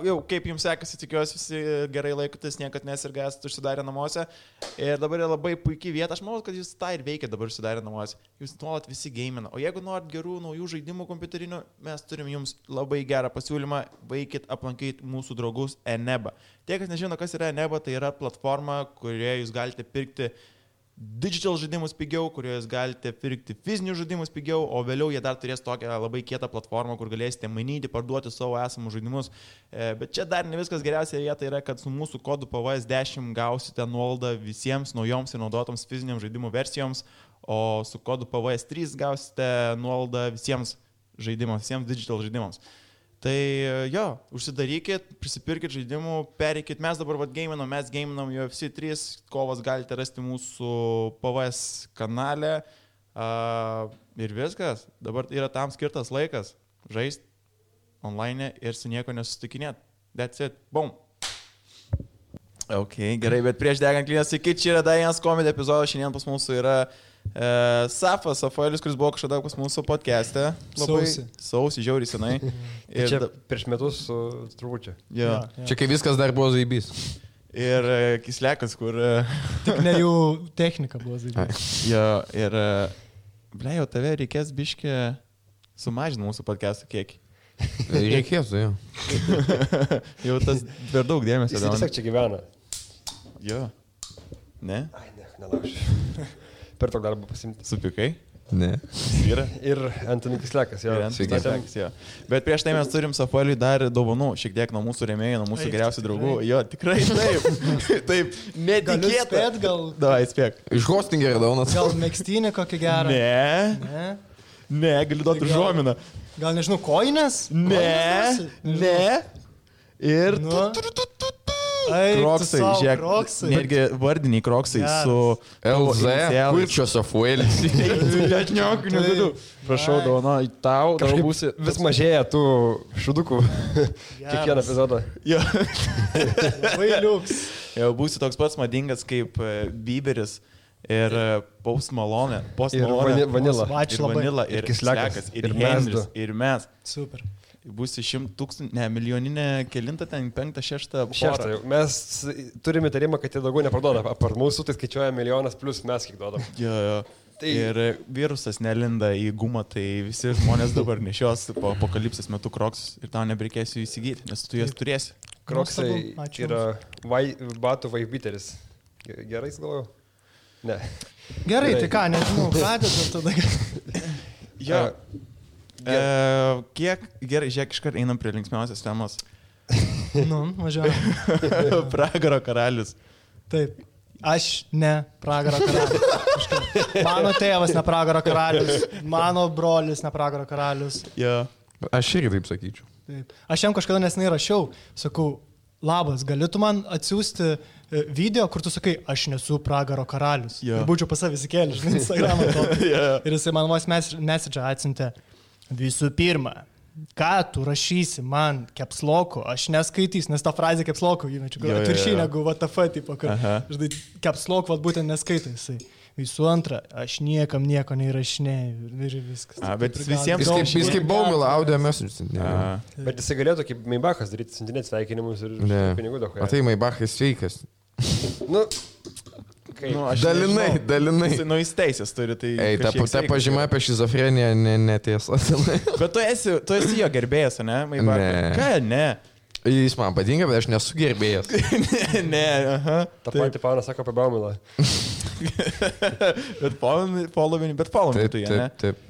Jau kaip jums sekasi, tikiuosi visi gerai laikotės, niekad nesirgęs, užsidarę namuose. Ir dabar yra labai puikiai vieta, aš manau, kad jūs tą ir veikia dabar užsidarę namuose. Jūs nuolat visi gamina. O jeigu norit gerų naujų žaidimų kompiuterinių, mes turim jums labai gerą pasiūlymą, vaikit aplankyti mūsų draugus Eneba. Tie, kas nežino, kas yra Eneba, tai yra platforma, kurioje jūs galite pirkti digital žaidimus pigiau, kurioje jūs galite pirkti fizinius žaidimus pigiau, o vėliau jie dar turės tokią labai kietą platformą, kur galėsite mainyti, parduoti savo esamus žaidimus. Bet čia dar ne viskas geriausia vieta yra, kad su mūsų kodu PVS10 gausite nuolaidą visiems naujoms ir naudotoms fiziniams žaidimų versijoms, o su kodu PVS3 gausite nuolaidą visiems žaidimams, visiems digital žaidimams. Tai jo, užsidarykit, prisipirkit žaidimų, pereikit, mes dabar mes gaminam UFC 3, kovas galite rasti mūsų PVS kanale ir viskas, dabar yra tam skirtas laikas, žaist online ir su nieko nesusitikinėt, that's it, boom. Ok, gerai, bet prieš degant klynės, iki čia yra dar vienas komedijų epizodas, šiandien pas mūsų yra Safaelis, kuris buvo kažkada pas mūsų podcast'e. Sausi, žiauriai senai. Ir čia prieš metus turbūt čia. Ja. Čia kai viskas dar buvo zaibys. Ir Kislekas, kur... Tik ne jų technika buvo zaibys. Jo, ir... Jau tave reikės biškį sumažinti mūsų podcast'ų kiekį. Reikės, jo. Jau tas per daug dėmesio. Jis tiesiog čia gyvena. Jo. Ne? Ai, ne, nelaušiu. Per tokį darbą pasimti. Supikai? Ne. Yra. Ir Antonis Kislekas, jo. Kislekas, jo. Bet prieš tai mes turim Safaeliui dar dovanų, šiek tiek nuo mūsų rėmėjų, nuo mūsų geriausių draugų. Jo, tikrai taip. Taip, netikėta. Gal... Davai, spėk. Iš Hostingerio daunas. Gal megztinį kokį gerą? Ne, galiu duoti užuominą. Gal nežinau, koinės? Ne. Ir... Kroksai, žiūrėk, netgi vardiniai kroksai su LZ, Kurčio Safaelis. Prašau, dovana, tau būsi... Vis mažėja tų šudukų kiekvieną epizodą. Jo. Labai liuks. Jau būsi toks pats madingas kaip Bieberis ir Post Malone. Ir Vanilla, ir Kislekas, ir Henris, ir mes. Super. Būsi 100 000, milijoninė kelintą ten, 5, 6 porą. Mes turime įtarimą, kad jie daugiau neparduoda. Apart mūsų, tai skaičiuoja milijonas plus mes kiek duodam. Jo. Tai... Ir virusas nelinda į gumą, tai visi žmonės dabar nešios po apokalipsės metu kroksus ir tau nebereikės jų įsigyti, nes tu juos turėsi. Kroksai yra batų vaibiteris. Gerai galvoju? Ne. Gerai, tai ką, nežinau, pradėt tada. Jo. Kiek gerai, žiūrėk, iškart einam prie linksmiausios temos. Važiuojam. Pragaro karalius. Taip. Aš ne pragaro karalius. Mano tėvas ne pragaro karalius. Mano brolis ne pragaro karalius. Jo. Aš irgi taip sakyčiau. Taip. Aš jam kažkada nesenai rašiau, sakau, labas, galėtų man atsiųsti video, kur tu sakai, aš nesu pragaro karalius. Jo. Ir būčiau pas savį įsikėlęs, žinai, Instagramą to. Ir jisai man vos message atsiuntė. Visų pirma, ką tu rašysi man capsloku, aš neskaitysiu, nes tą frazę capsloku įmečiu, gal atviršiai negu WTF, tipo, kad žinai, capslok vat būtent neskaito jisai. Visų antra, aš niekam nieko neįrašinėjau ir viskas. Bet visiems... Jis kaip Baumila audio message. Bet jisai galėtų kaip Maybachas daryti, siuntinėti sveikinimus ir pinigų daug. O tai Maybachas sveikas. Dalinai. Jis teisės turi, tai... Ei, ta pažyma apie šizofreniją netiesa. Bet tu esi jo gerbėjas, ne? Ne. Ką, ne? Jis man patinka, bet aš nesu gerbėjas. Ne, aha. Ta pati Paunas sako apie Baumilą. Bet following tu, ne? Taip.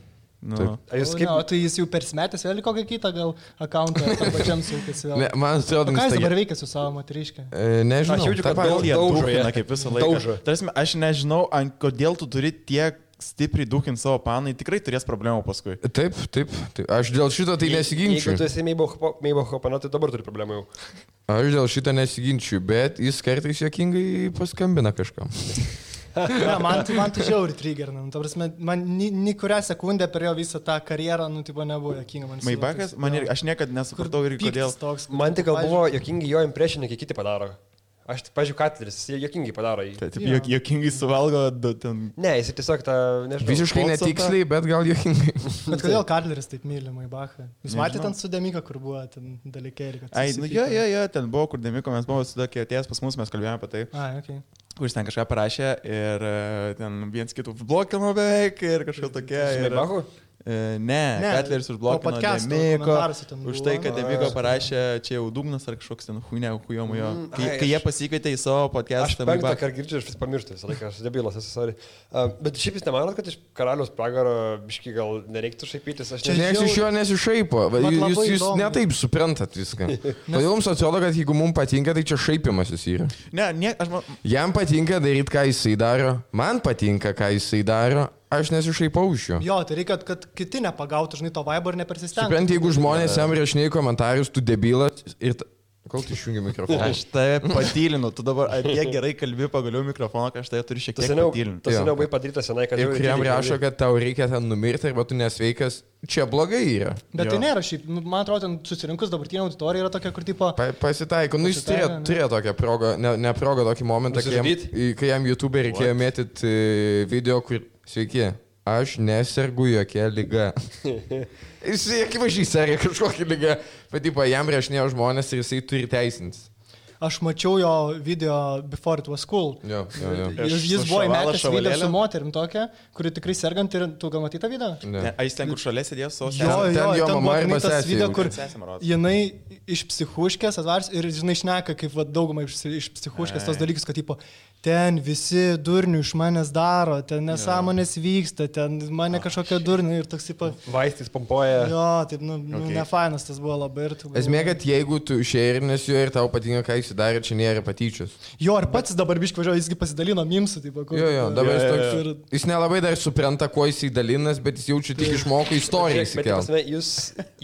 Tai jis jau persimetęs vėl kokią kitą gal akauntą tam pačiam sukasi vėl. Ne, man atrodo, ką jis dabar veikia su savo moteriške? Nežinau. Aš jaučiu, kad daužo kaip visą laiką. Tarsi, aš nežinau, kodėl tu turi tiek stipriai dūkinti savo panai, tikrai turės problemų paskui. Taip. Aš dėl šito tai nesiginčiu. Jeigu tu esi Meibacho pana, tai dabar turi problemų jau. Aš dėl šito nesiginčiu, bet jis kartais juokingai paskambina kažkam. Ne, man tai žiauri triggerina. Man ni kurią sekundę per jo visą tą karjerą, tipo, nebuvo jokinga. Maybachas, aš niekad nesupratau ir kodėl. Man tik gal buvo jokingi jo impresioniai, kai kiti padaro. Aš, pažiūrėjau, Katleris, jis jokingai padaro jį. Tai taip, jokingai suvalgo ten. Ne, jis tiesiog tą, nežinau. Visiškai Mozartą. netiksliai, bet gal juokingai. Bet kodėl Katleris taip myli Maibachą? Jūs matėte ten su Demika, kur buvo ten dalykėlį? Ai, nu, ten buvo, kur Demiko, mes buvome su tokia atėjęs pas mus, mes kalbėjome apie tai. Ai, okei. Kuris ten kažką parašė ir ten viens kitų blokino beveik ir kažką tokia. Maibachu? Ne, Katleris užblokino Demiko. Už tai, kad Demiko parašė, čia jau dugnas ar kažkoks ten hujomo jo. Kai jie pasikvietė į savo podcastą. Aš penktą kartą girdžiu, aš vis pamirštu visą laiką, aš debilas esu, sorry. Bet šiaip jūs nemanot, kad iš karaliaus pragaro biški gal nereiktų šaipytis? Nes iš jo nesišaipo. Jūs netaip suprantat viską. Todėl jums atrodo, kad jeigu mums patinka, tai čia šaipimasis yra. Ne, aš man... Jam patinka daryti, ką jisai daro. Man patinka, ką jisai daro. Aš nesišaipau iš jo. Jo, tai reikia, kad kiti nepagautų, žinai, to vibe ir nepersistengtų. Suprant, jeigu žmonės jam rašinėja komentarus, tu debilas ir... Kol tu išjungi mikrofoną? Aš tave patylinu, tu dabar apie gerai kalbi pagaliau mikrofoną, kad aš tave turiu šiek tiek patylinti. Tas seniau buvai padarytas senai, kad... Ir kuriam rašo, kad tau reikia ten numirti arba tu nesveikas, čia blogai yra. Bet tai nėra šiaip, man atrodo, ten susirinkus dabartinė auditorija yra tokia, kur tipo... Pasitaiko, nu jis turėjo tokią progą, ne progą, tokį momentą, kai jam YouTube reikėjo mėtyti video, kur... Sveiki. Aš nesergu jokia lyga. Jis akivaizdžiai serga kažkokią lygą, bet jam rašinėjo žmonės ir jisai turi teisintis. Aš mačiau jo video Before It Was Cool. Jo. Jis buvo įmetęs video su moterim tokia, kuri tikrai sergant ir tu gal matei tą video? Ne. A jis ten, kur šalia sėdėjo su ten jo mama ir tas video, kur sesė. jinai iš psichuškės atvars ir žinai šneka, kaip daugumai iš psichuškės tos dalykus, kad tipo, ten visi durnių iš manęs daro, ten nesąmonės vyksta, ten mane kažkokia durnių ir toks tipo... Vaistais pompuoja. Jo, taip, nefainas tas buvo labai ir tu... Esmė, kad jeigu tu šėrinės jo ir tau patinka, ką jis darė, čia nėra patyčios. Jo, ir pats dabar biškai važiuoju, jisgi pasidalino mimsų, taip, kur... Jo, dabar jis toks... Jis nelabai dar supranta, kuo jisai dalinas, bet jis jaučia tik išmoko istoriją įsikelti.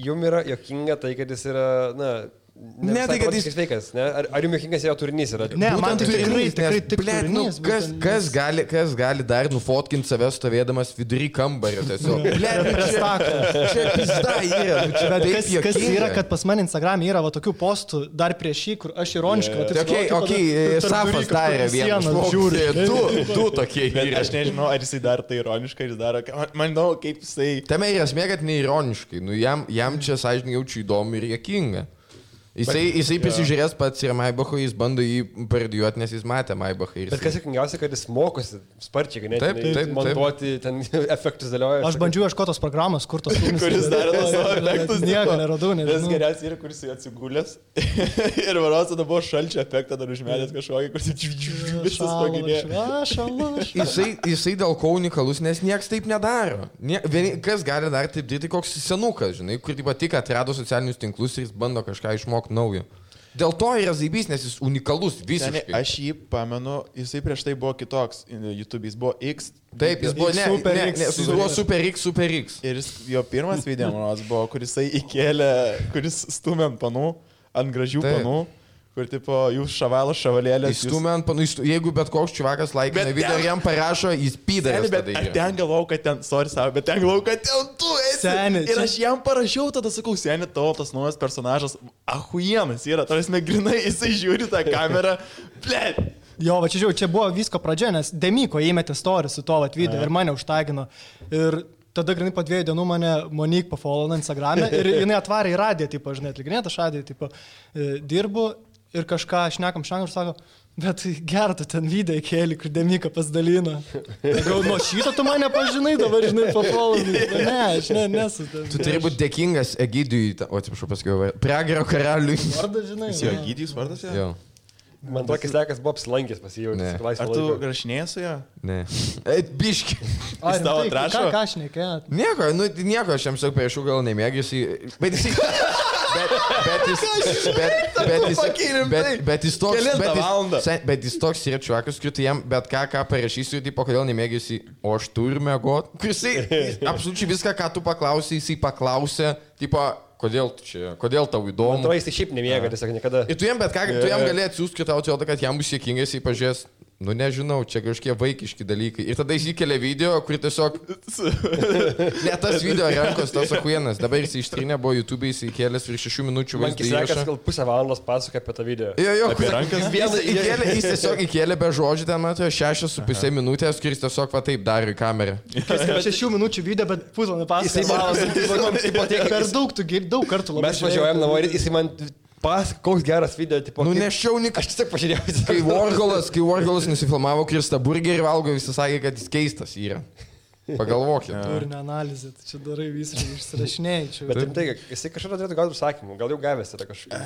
Jums yra jokinga tai, kad jis yra, na... Ne, tai kad jis sveikas, ne? Ar jums jokingas jo turinys yra? Ne, man tai tikrai turinys. Kas gali dar nufotkinti save stovėdamas vidury kambario tiesiog? Čia pizda yra. Bet kas yra, kad pas mane Instagram yra va tokių postų dar prieš šį, kur aš ironiškai... Safas darė vieną. Du tokie yra. Aš nežinau, ar jisai dar tai ironiškai, ar jis daro... Man įdomu, kaip jisai... Tame yra esmė, kad neironiškai. Jam čia sąžininkai jaučiu įdomu ir juokinga. Jisai prisižiūrės pats ir Maibachą, jis bando jį parodijuoti, nes jis matė Maibachą. Bet kas sėkmingiausia, kad jis mokosi sparčiai, ganėtinai montuoti, ten efektus dėlioja. Aš bandžiau ieškoti tos programos, kur tos filmus. Kuris darė tos savo efektus. Nieko neradau, nežinau. Tas geriausias yra, kuris atsigulęs. Ir varos tada buvo šalčio efektą dar užmetęs kažkokį, kuris visas paginėjo. Jisai dėl ko unikalus, nes nieks taip nedaro. Kas gali dar taip daryti, koks senukas, žinai, kur tik atrado socialinius tinklus ir jis bando kažką išmokti naujo. Dėl to yra zaibys, nes jis unikalus visiškai. Aš jį pamenu, jisai prieš tai buvo kitoks YouTube, jis buvo X. Taip, jis buvo Super X. Ir jo pirmas video, manos, buvo, kur jisai įkėlė, kuris stumė ant panų, ant gražių panų. Kur tipo, jūs šavalėlės. Įstumė ant panų, jeigu bet koks čivakas laikina video ir jam parašo, jis pydarės. Bet ten galvau, kad ten, bet ten galvau, kad ten tu esi. Seni, ir aš jam parašiau, tada sakau, seni, tavo tas naujas personažas, ahuienas yra, tarsi grinai, jisai žiūri tą kamerą, blėt. Jo, va čia žiūrėjau, čia buvo visko pradžia, nes Demiko įmetė story su to video ir mane užtagino. Ir tada grinai po 2 dienų mane Monique pafollow Instagram'e ir jinai atvarė į radiją, tipo, žinai, atlikinėta šadį, tipo, dirbu. Ir kažką šnekam ir sako, bet gerą tu ten video įkėlį, kur Demika pasidalino. Gal nuo šito tu mane pažinai, dabar žinai, pafollow. Ne, aš nesu. Tu turi būti dėkingas Egidijui, atsiprašau pasakiau, Pragaro karaliui. Vardas, žinai. Jis jo Egidijus vardas, jo? Man tokis lekas buvo apsilankęs pasijauti. Ar tu rašinėjai su juo? Ne. Biški. Jis tavo atrašo? Ką šnekėjot? Nieko, aš jam sakau, priešų gal nemėgiusi. Bet jis toks yra čiuakas, kur tu jam bet ką parašysiu, tipo, kodėl nemėgiusi, o aš turiu mėgot. Jisai absoliučiai viską, ką tu paklausai, jisai paklausė, tipo, kodėl tau įdomu. Man atrodo, jis šiaip nemėga, tiesiog niekada. Ir tu jam bet ką, tu jam gali atsiųsti, kad tau atrodo, kad jam bus sėkingas, jei pažiūrės. Nu nežinau, čia kažkokie vaikiški dalykai. Ir tada jis įkelia video, kur tiesiog... Ne tas video rankos, tas akuienas. Dabar jis ištrynė, buvo YouTube, jis įkelęs virš 6 minučių vaizdą įrašą. Man kisekas gal pusę valandos pasakoja apie tą video. Jo, apie rankas. Jis tiesiog įkelė be žodžių, ten matau, 6,5 minutės, kuris tiesiog va taip darė į kamerą. 6 minučių video, bet pusvalandį pasakoja. Per daug kartų labai. Mes važiuojam namo ir jis man... koks geras video, tipo... Nu, nešiau, aš tiesiog pažiūrėjau. Kai Warholas nusifilmavo Kristą burgerį valgo, visi sakė, kad jis keistas yra. Pagalvokit. Turinio analizė, tai čia darai visiškai išsirašinėjai. Bet tai, jisai kažką turėtų gauti užsakymų, gal jau gavęs yra kažką.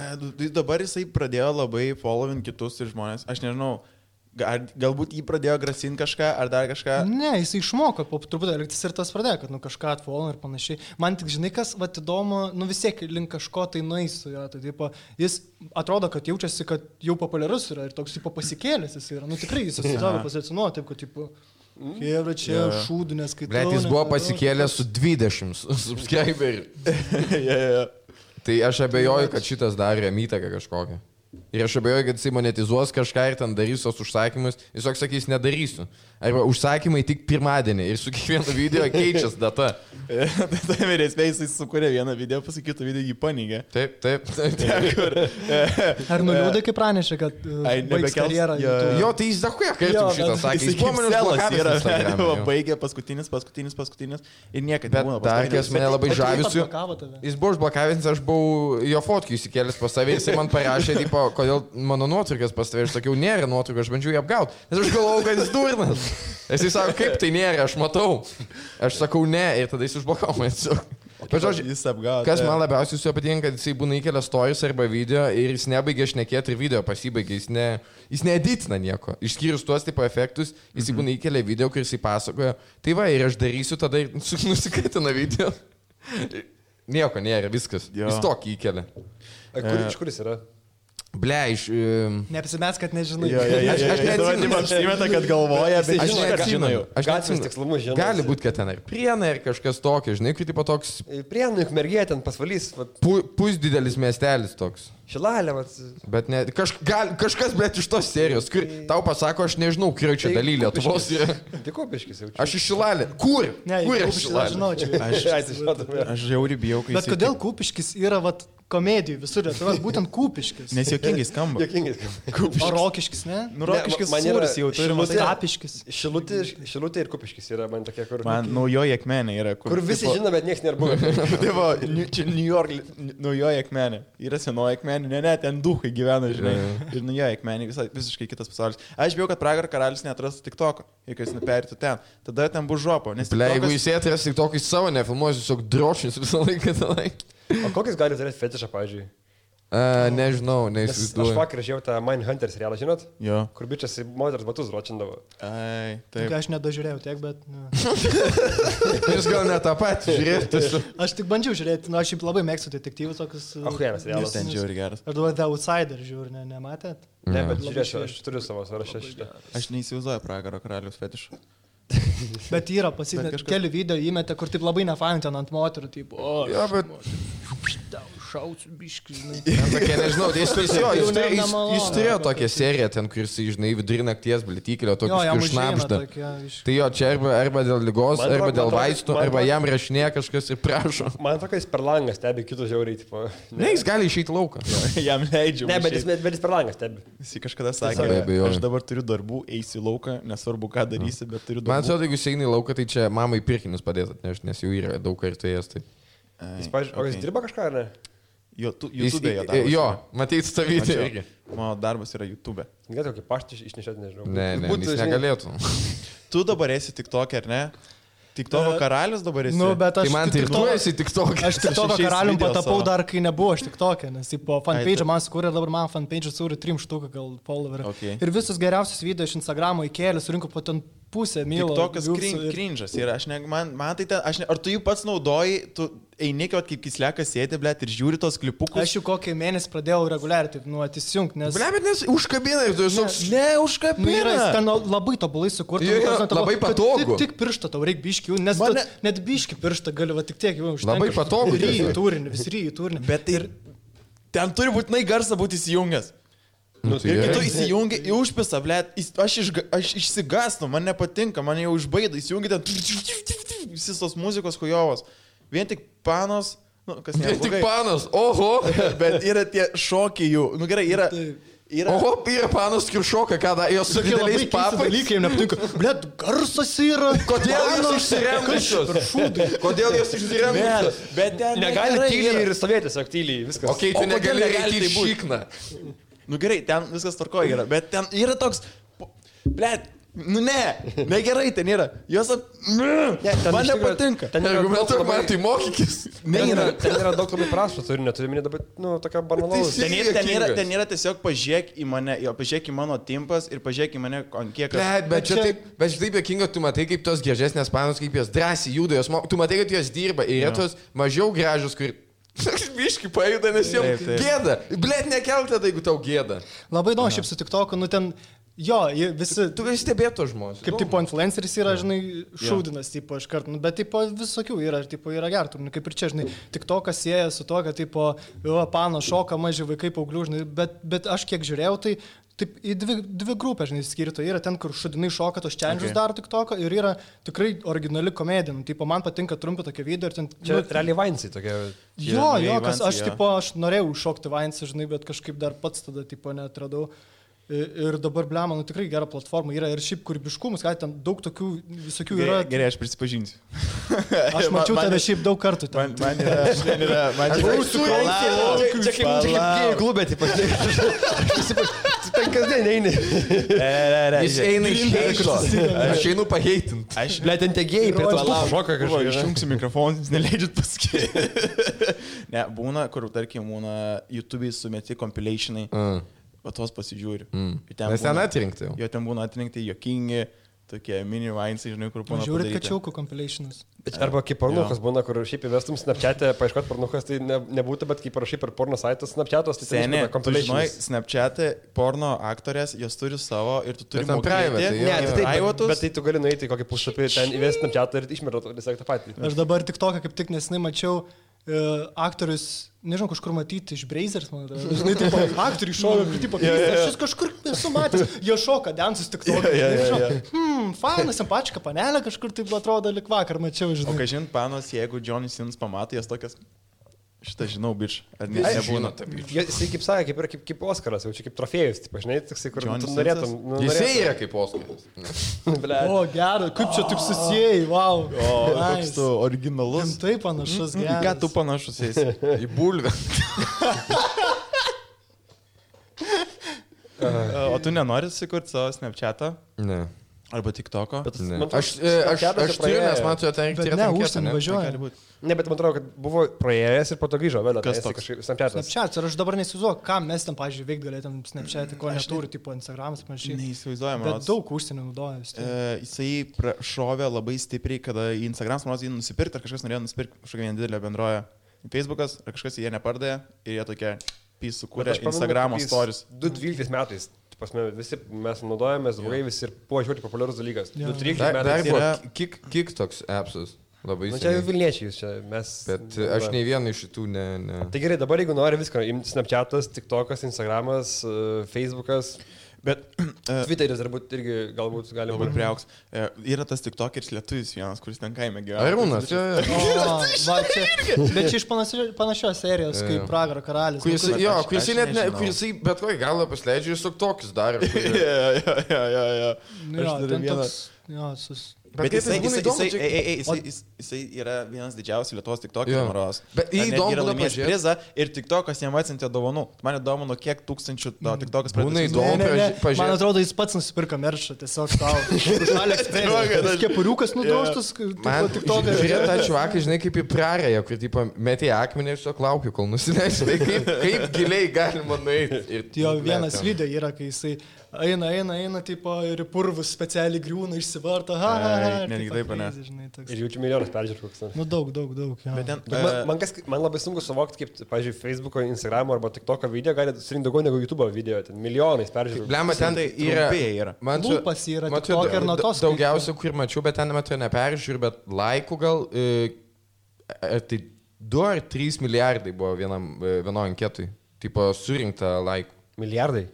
Dabar jisai pradėjo labai following kitus ir žmonės, aš nežinau. Galbūt jį pradėjo grasinti kažką, ar dar kažką? Ne, jis išmoko po truputį elgtis ir tas pradėjo, kad kažką atfollow ir panašiai. Man tik žinai, kas įdomu, vis tiek link kažko tai nueis su jo. Tai, jis atrodo, kad jaučiasi, kad jau populiarus yra ir toks pasikėlęs jis yra. Tikrai jis susidaro pozicionuoja taip, kad Kievra čia šūdinės skaitau. Bet jis buvo pasikėlęs su 20 subscriberių. Tai aš abejoju, kad šitas darė įtaką kažkokią. Ir aš abejoju, kad jisai monetizuos kažką ir ten darys tos užsakymus. Jis sakys, nedarysiu. Arba užsakymai tik pirmadienį ir su kiekvienu video keičias data. Tai vyresnė jisai sukūrė vieną video, pasakytų video jį panygė. Taip. Ar nuliūdai, kaip pranešė, kad baigs karjerą? Jo, tai jis dahuja, kai tu šitą sakė. Jis buvo baigė paskutinis ir niekada nebūna. Bet dar, kas mane labai žavisiu, jis buvo užblokavęs, aš buvau jo fotkį įsikėlęs pas save, jisai man parašė, kodėl mano nuotraukas pas tave, aš sakiau, nėra nuotraukų, aš bandžiau jį apgauti, nes aš galvojau, kad jis durnas. Jisai sako, kaip tai nėra, aš matau. Aš sakau, ne, ir tada jis užblokavo man. Bet žodžiu, kas man labiausiai su juo patinka, kad jisai būna įkelia stories arba video ir jis nebaigia šnekėti ir video pasibaigia, jis needitina nieko. Išskyrus tuos tipo efektus, jisai būna įkelia video, kur jisai pasakoja, tai va, ir aš darysiu, tada ir nusikaitina video. Nieko nėra, viskas. Jis tokį įkelia. Iš kur jis yra? Ble, iš... Neapsimės, kad nežinai. Aš neatsimenu. Apsimeta, kad galvoja, bet aš neatsimenu. Gatvės tikslumus žinau. Gali būti, kad ten ir Prienai, ir kažkas tokio, žinai, kaip tipo toks... Prienai, Ukmergė, ten pasvalys. Pusdidelis miestelis toks. Šilalė, Bet ne, kažkas, bet iš tos serijos, kur tau pasako, aš nežinau, kurio čia daly Lietuvos yra. Tai Kupiškis jau čia. Aš iš Šilalė. Kur? Kur aš Šilalė? Aš žiauriai bijau, kai... Bet kodėl Kupiškis yra, komedijų visur, tai būtent Kupiškis. Nes juokingai skamba. O Rokiškis, ne? Nu, Rokiškis sūris jau turi, matai. Kapiškis. Šilutė ir Kupiškis yra man tokie, kur... Man naujoji akmenė yra. Kur visi žino, bet niekas nėra buvo. Čia New York naujoji akmenė. Yra senoji akmenė, ne, ten duhai gyvena, žinai. Ir naujoji akmenė, visiškai kitas pasaulis. Aš bijau, kad Pragaro karalius neatrastų TikToko, jeigu jis neperėtų ten. Tada ten bus žopo. Jeigu jis atras TikTokį savo nefilmuos, tiesiog drošins visą laiką tenai. O kokius gali turėti fetišą, pavyzdžiui? Nežinau, neįsivaizduoju. Aš vakar žiūrėjau tą Mindhunter serialą, žinot? Jo. Kur bičias moters batus ročindavo. Ai, taip. Aš nedažiūrėjau tiek, bet... Jūs gal ne tą patį žiūrėjote? Aš tik bandžiau žiūrėti, aš šiaip labai mėgstu detektyvus tokius... Geras serialas. Ten žiūri geras. Ar duoda The Outsider žiūri, nematėt? Ne, bet žiūrėsiu, aš turiu savo sąrašą šitą. Aš neįsivaizduoju Pragaro karalius fetišų. Bet yra pasidėti, keli video įmetė, kur taip labai nefain ten ant moterų, taip, jo, bet... Šausiu biškį, žinai. Tokie, nežinau, jis turėjo tokią seriją ten, kur jis, žinai, vidurį nakties blitykelio, tokius šnapžda. Tai jo, čia arba dėl ligos, arba dėl vaistų, arba jam rašinė kažkas ir prašo. Man tokia jis per langą stebi kitus žiauriai, tipo. Ne, jis gali išeiti lauką. Jam leidžiu. Ne, bet jis per langą stebi. Jis kažkada sakė, aš dabar turiu darbų, eisiu į lauką, nesvarbu ką darysi, bet turiu darbų. Man atrodo, jeigu jis eina į lauką, tai čia mamai pirkinius padės atnešti, nes jau yra daug kartų ėjęs. O jis dirba kažką, ar ne? YouTube darbas. Jo, matyti tą video irgi. Mano darbas yra YouTube. Galėtų kokį paštį išnešėti, nežinau. Ne, jis negalėtų. Tu dabar esi TikTok, ar ne? TikToko karalius dabar esi. Nu, bet tai man tai tu esi TikTok. Aš TikToko karalium patapau dar, kai nebuvo aš TikTok'e, nes po fanpage man sukūrė, dabar man fanpage sukūrė 3 štuką gal followerį. Okay. Ir visus geriausius video iš Instagramo įkėlė, surinko po ten pusę mylo. TikTokas cringe'as yra, man tai ten, ar tu jų pats naudoji, tu eini, kaip kislekas sėdi, blėt, ir žiūri tos klipukus. Aš jau kokį mėnesį pradėjau reguliariai, taip, atįsijungti, nes... Blėt, bet nes užkabina ir tu toks... Ne, užkabina. Ten labai tobulai sukurti. Labai patogu. Tik pirštą tau reikia biškių, nes net biškį pirštą gali, va tik tiek jau užtenka. Labai patogu. Vis ryjų turinį. Bet ir ten turi būtinai garsą būti įsijungęs. Nu, tai Ir gerai. tu įsijungi į užpisą, blėt, aš išsigastu, man nepatinka, man jau užbaido, įsijungi ten visos tos muzikos hujovos. Vien tik panos, nu, kas Vien tik neblogai, panas, oho. bet yra tie šokiai jų. Nu gerai, yra... Oho, yra panas kiršoka, ką da, jos su dideliais papai. Dalykai jam nepatinka. Blet, garsas yra. Kodėl jos išsiremusios? Kodėl jos išsiremusios? Bet ten negali negerai tyliai yra. ir stovėti, tiesiog tyliai, viskas. Okei, tu O kodėl negali negali eiti į tai būt? šikną. Nu gerai, ten viskas tvarkoja yra, bet ten yra toks... Blet, nu negerai ten yra. Jos... Man nepatinka. Ten yra Jeigu daug metu labai- man tai mokykis. ten yra daug labai prasto turinio, turiu minėti dabar, nu, tokia banalaus. Tai Ten yra tiesiog pažiūrėk į mane, pažiūrėk į mano timpas ir pažiūrėk į mane, ant kiek... Bet čia taip jokinga, tu matai, kaip tos gražesnės panos, kaip jos drąsiai juda, tu matai, kad jos dirba ir yra tos mažiau gražios, kur... Biški pajuda, nes jiems Taip. gėda. Blet, nekelti tada, jeigu tau gėda. Labai įdomu, šiaip su TikToku, nu ten, jo, visi... Tu gali stebėti tos žmonės. Kaip tipo influenceris yra, žinai, šaudinas, tipo, iš karto, nu, bet tipo visokių yra, ir tipo yra gertų, nu, kaip ir čia, žinai, tik to, kas sieja su to, kad tipo, pano šoka, maži vaikai paauglių, žinai, bet aš kiek žiūrėjau, tai taip į dvi grupės, žinai, skirto. Yra ten, kur šudinai šoka tos challenges daro tik toko, ir yra tikrai originali komedija, nu, tipo, man patinka trumpi tokie video, ir ten... Čia realiai Vainsai tokia. Jo, kas aš, jo. tipo, aš norėjau šokti Vainsą, žinai, bet kažkaip dar pats tada, tipo, netradau. Ir dabar, blema, nu tikrai gera platforma yra ir šiaip kūrybiškumas, kad ten daug tokių visokių yra. Gerai, aš prisipažinsiu. Aš mačiau tave šiaip daug kartų ten. Man yra... Čia kaip gėjų klubė, tipo, ten kasdien eini. Jis eina iš heito. Aš einu paheitint. Ble, ten tie gėjai prie to šoka kažkaip. Išjungsiu mikrofoną, jūs neleidžiat pasakyti. Ne, būna, kur, tarkim, būna YouTube'ai sumeti compilationai. O tos pasižiūri. Nes ten atrinkti jau. Jo ten būna atrinkti jokingi, tokie mini vainsai, žinai, kur būna. Žiūrit kačiaukų compilationus. Arba kaip pornukas būna, kur šiaip įvestum Snapchat'e, paieškot pornukas, tai nebūtų, bet kaip parašai per porno saitas Snapchat'os, tai Seniai, tu žinai, compilations. Snapchat'e porno aktorės, jos turi savo ir tu turi Bet ten private, Ne, jo. tai taip, privatus. bet tai tu gali nueiti į kokį puslapį, ten įvesti Snapchat'ą ir išmeroti tiesiog tą patį. Aš dabar tik toką kaip tik nesenai mačiau aktorius, nežinau, kažkur matyti iš Brazers, man atrodo. Žinai, tipo, aktoriai šoka, kur tipo, aš jūs kažkur esu matęs, jie šoka, dansus tik toką. Fainas, simpačika panelė, kažkur taip atrodo, lik vakar mačiau, O žinai. ką žinot, panos, jeigu Johnny Sins pamato, jas tokias... Šitą žinau, bič. Ar ne, Visi nebūna. žino tą bič. Jisai kaip sakė, kaip yra kaip Oskaras, jau čia kaip trofėjus, taip, žinai, toksai, kur Johnny tu norėtum. Sinsas? nu, Jisai norėtum. yra kaip Oskaras. O, gerai, kaip čia taip susijai, wow. O, koks tu originalus. Taip panašus, Ką gerai. tu panašus esi? Į bulvę. O tu nenori sukurti savo Snapchat'ą? Ne. Arba TikTok'o? Ne. Man atrodo, Aš Snapchat'as turiu, praėjo. nes man su ten Bet ne, užsienį važiuoja. Gali būti. Ne, bet man atrodo, kad buvo praėjęs ir po to grįžo vėl. Kas atėjęs į toks? kažkaip Snapchat'as. Snapchat, ir aš dabar neįsivaizduoju, ką mes ten, pažiūrėjau, veikti galėtum Snapchat, ko neturi, tipo Instagramas, panašiai. Neįsivaizduojama. Bet daug užsienio naudoja vis tiek. Jisai šovė labai stipriai, kada į Instagram smanos jį nusipirkti, ar kažkas norėjo nusipirkti kažkokią nedidelę bendroją Facebookas, ar kažkas jie nepardavė ir jie tokie pys sukūrė Instagramo stories. 2012 metais. Pasme, visi mes naudojamės, draugai visi ir buvo žiūrėti populiarus dalykas. Jo. 2013 Dar metais. buvo kiek toks appsas. Labai Nu, čia jau seniai. Vilniečiai, čia mes. Bet aš nei vieną iš šitų ne. Tai gerai, dabar jeigu nori viską, imti Snapchat'as, TikTok'as, Instagramas, Facebook'as, Bet Twitteris irgi galbūt gali labai būti. priauks. Yra tas TikTokeris lietuvis vienas, kuris ten kaime gyvena. Arūnas, čia. O, va, čia, bet čia iš panašios serijos, kaip Pragaro karalis. Kuris, Nu, jo, aš kuris net ne, nežinau. kuris bet kokį galą pasleidžia, jis tokius daro. Jo. Jo, Aš turiu ten vieną. toks, jo, Bet kaip jisai, būna įdomu, jisai yra vienas didžiausių Lietuvos Jo. TikTokerių maros. Bet jį įdomu yra būna laimėjęs pažiūrėt. prizą ir TikTokas jam atsintė dovanų. Man įdomu, nuo kiek tūkstančių TikTokas Būna pradėjo. įdomu. Pažiūrėt. Man atrodo, jis pats nusipirka meršą, tiesiog tau. Alex Kepuriukas nudroštas, Man tik to žiūrėt, tą čuvaką, žinai, kaip į prarąją, kur tipo, metė akmenį ir tiesiog laukiu, kol nusileis. Tai kaip giliai galima nueiti. Jo vienas video yra, kai jisai eina, tipo, ir į purvus specialiai griūna, išsivarta. netgi taip, ne? Ir jaučiu milijonus peržiūrų koks. Nu, daug. Jo. Bet ten, Man labai sunku suvokti, kaip, pavyzdžiui, Facebook'o, Instagram'o arba TikTok'o video gali surinkti daugiau negu YouTube'o video, ten milijonais peržiūrų. Blema, ten tai yra. yra. Man čia- Lūpas yra man čia TikTok ir nuo tos Daugiausia, kur mačiau, bet ten metu neperžiūriu, bet laikų gal. Tai 2 ar 3 milijardai buvo vienoj anketui. Tipo, surinkta laikų. Milijardai.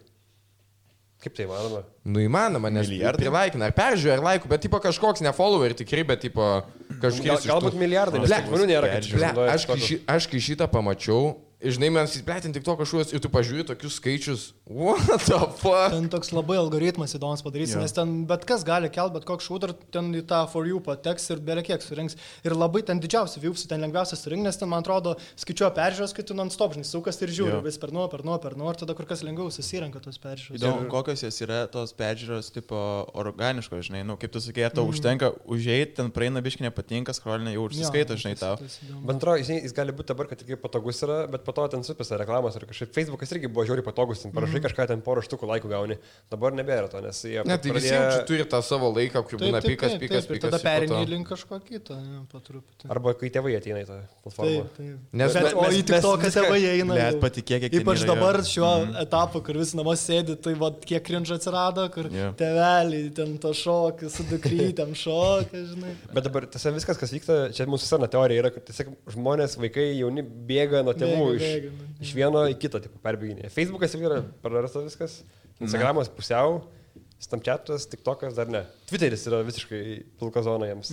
Kaip tai įmanoma? Nu įmanoma, nes prilaikina, ar peržiūrė, ar laikų, bet tipo kažkoks ne follower tikrai, bet tipo kažkoks... Galbūt milijardai, nes žmonių nėra. Aš kai šitą pamačiau, žinai, mes įsplėtin tik to kažkokius ir tu pažiūrė tokius skaičius, what the fuck? Ten toks labai algoritmas įdomus padarysi, nes ten bet kas gali kelt, bet koks shooter ten į tą for you pateks ir beveik kiek surinks. Ir labai ten didžiausi viewsai, ten lengviausia surinkti, nes ten, man atrodo, skaičiuoja peržiūros, kai tu non-stop, žinai, sukas ir žiūri vis per nuo, ir tada kur kas lengviau susirenka tos peržiūros. Įdomu, kokios jos yra tos peržiūros tipo organiškos, žinai, nu, kaip tu sakei, ar tau užtenka užeit, ten praeina biški nepatinka, scrollinė jau užsiskaito, žinai, tau. Bendro, jis gali būti dabar, kad tikrai patogus yra, bet po to ten supisa reklamos ir kažkaip Facebookas irgi buvo žiauriai patogus, ten parašai kažką, ten porą štukų laikų gauni. Dabar nebėra to, nes jie... Ne, tai visi čia turi tą savo laiką, kur būna pikas. Ir tada perini link kažko kito, po truputį. Arba kai tėvai ateina į tą platformą. Nes o į tik to, kad tėvai eina. Net patikėk, kiek ypač dabar šiuo etapu, kur visi namuose sėdi, tai va, kiek cringe atsirado, kur tėveliai ten to šokį, su dukrytėm šokį, žinai. Bet dabar tiesiog viskas, kas vyksta, čia mūsų sena teorija yra, kad tiesiog žmonės, vaikai, jauni bėga nuo tėvų iš vieno į kitą, tipo, perbėginė. Facebookas irgi yra prarasta viskas, Instagramas pusiau, Snapchatas, TikTokas dar ne. Twitteris yra visiškai pilka zona jiems.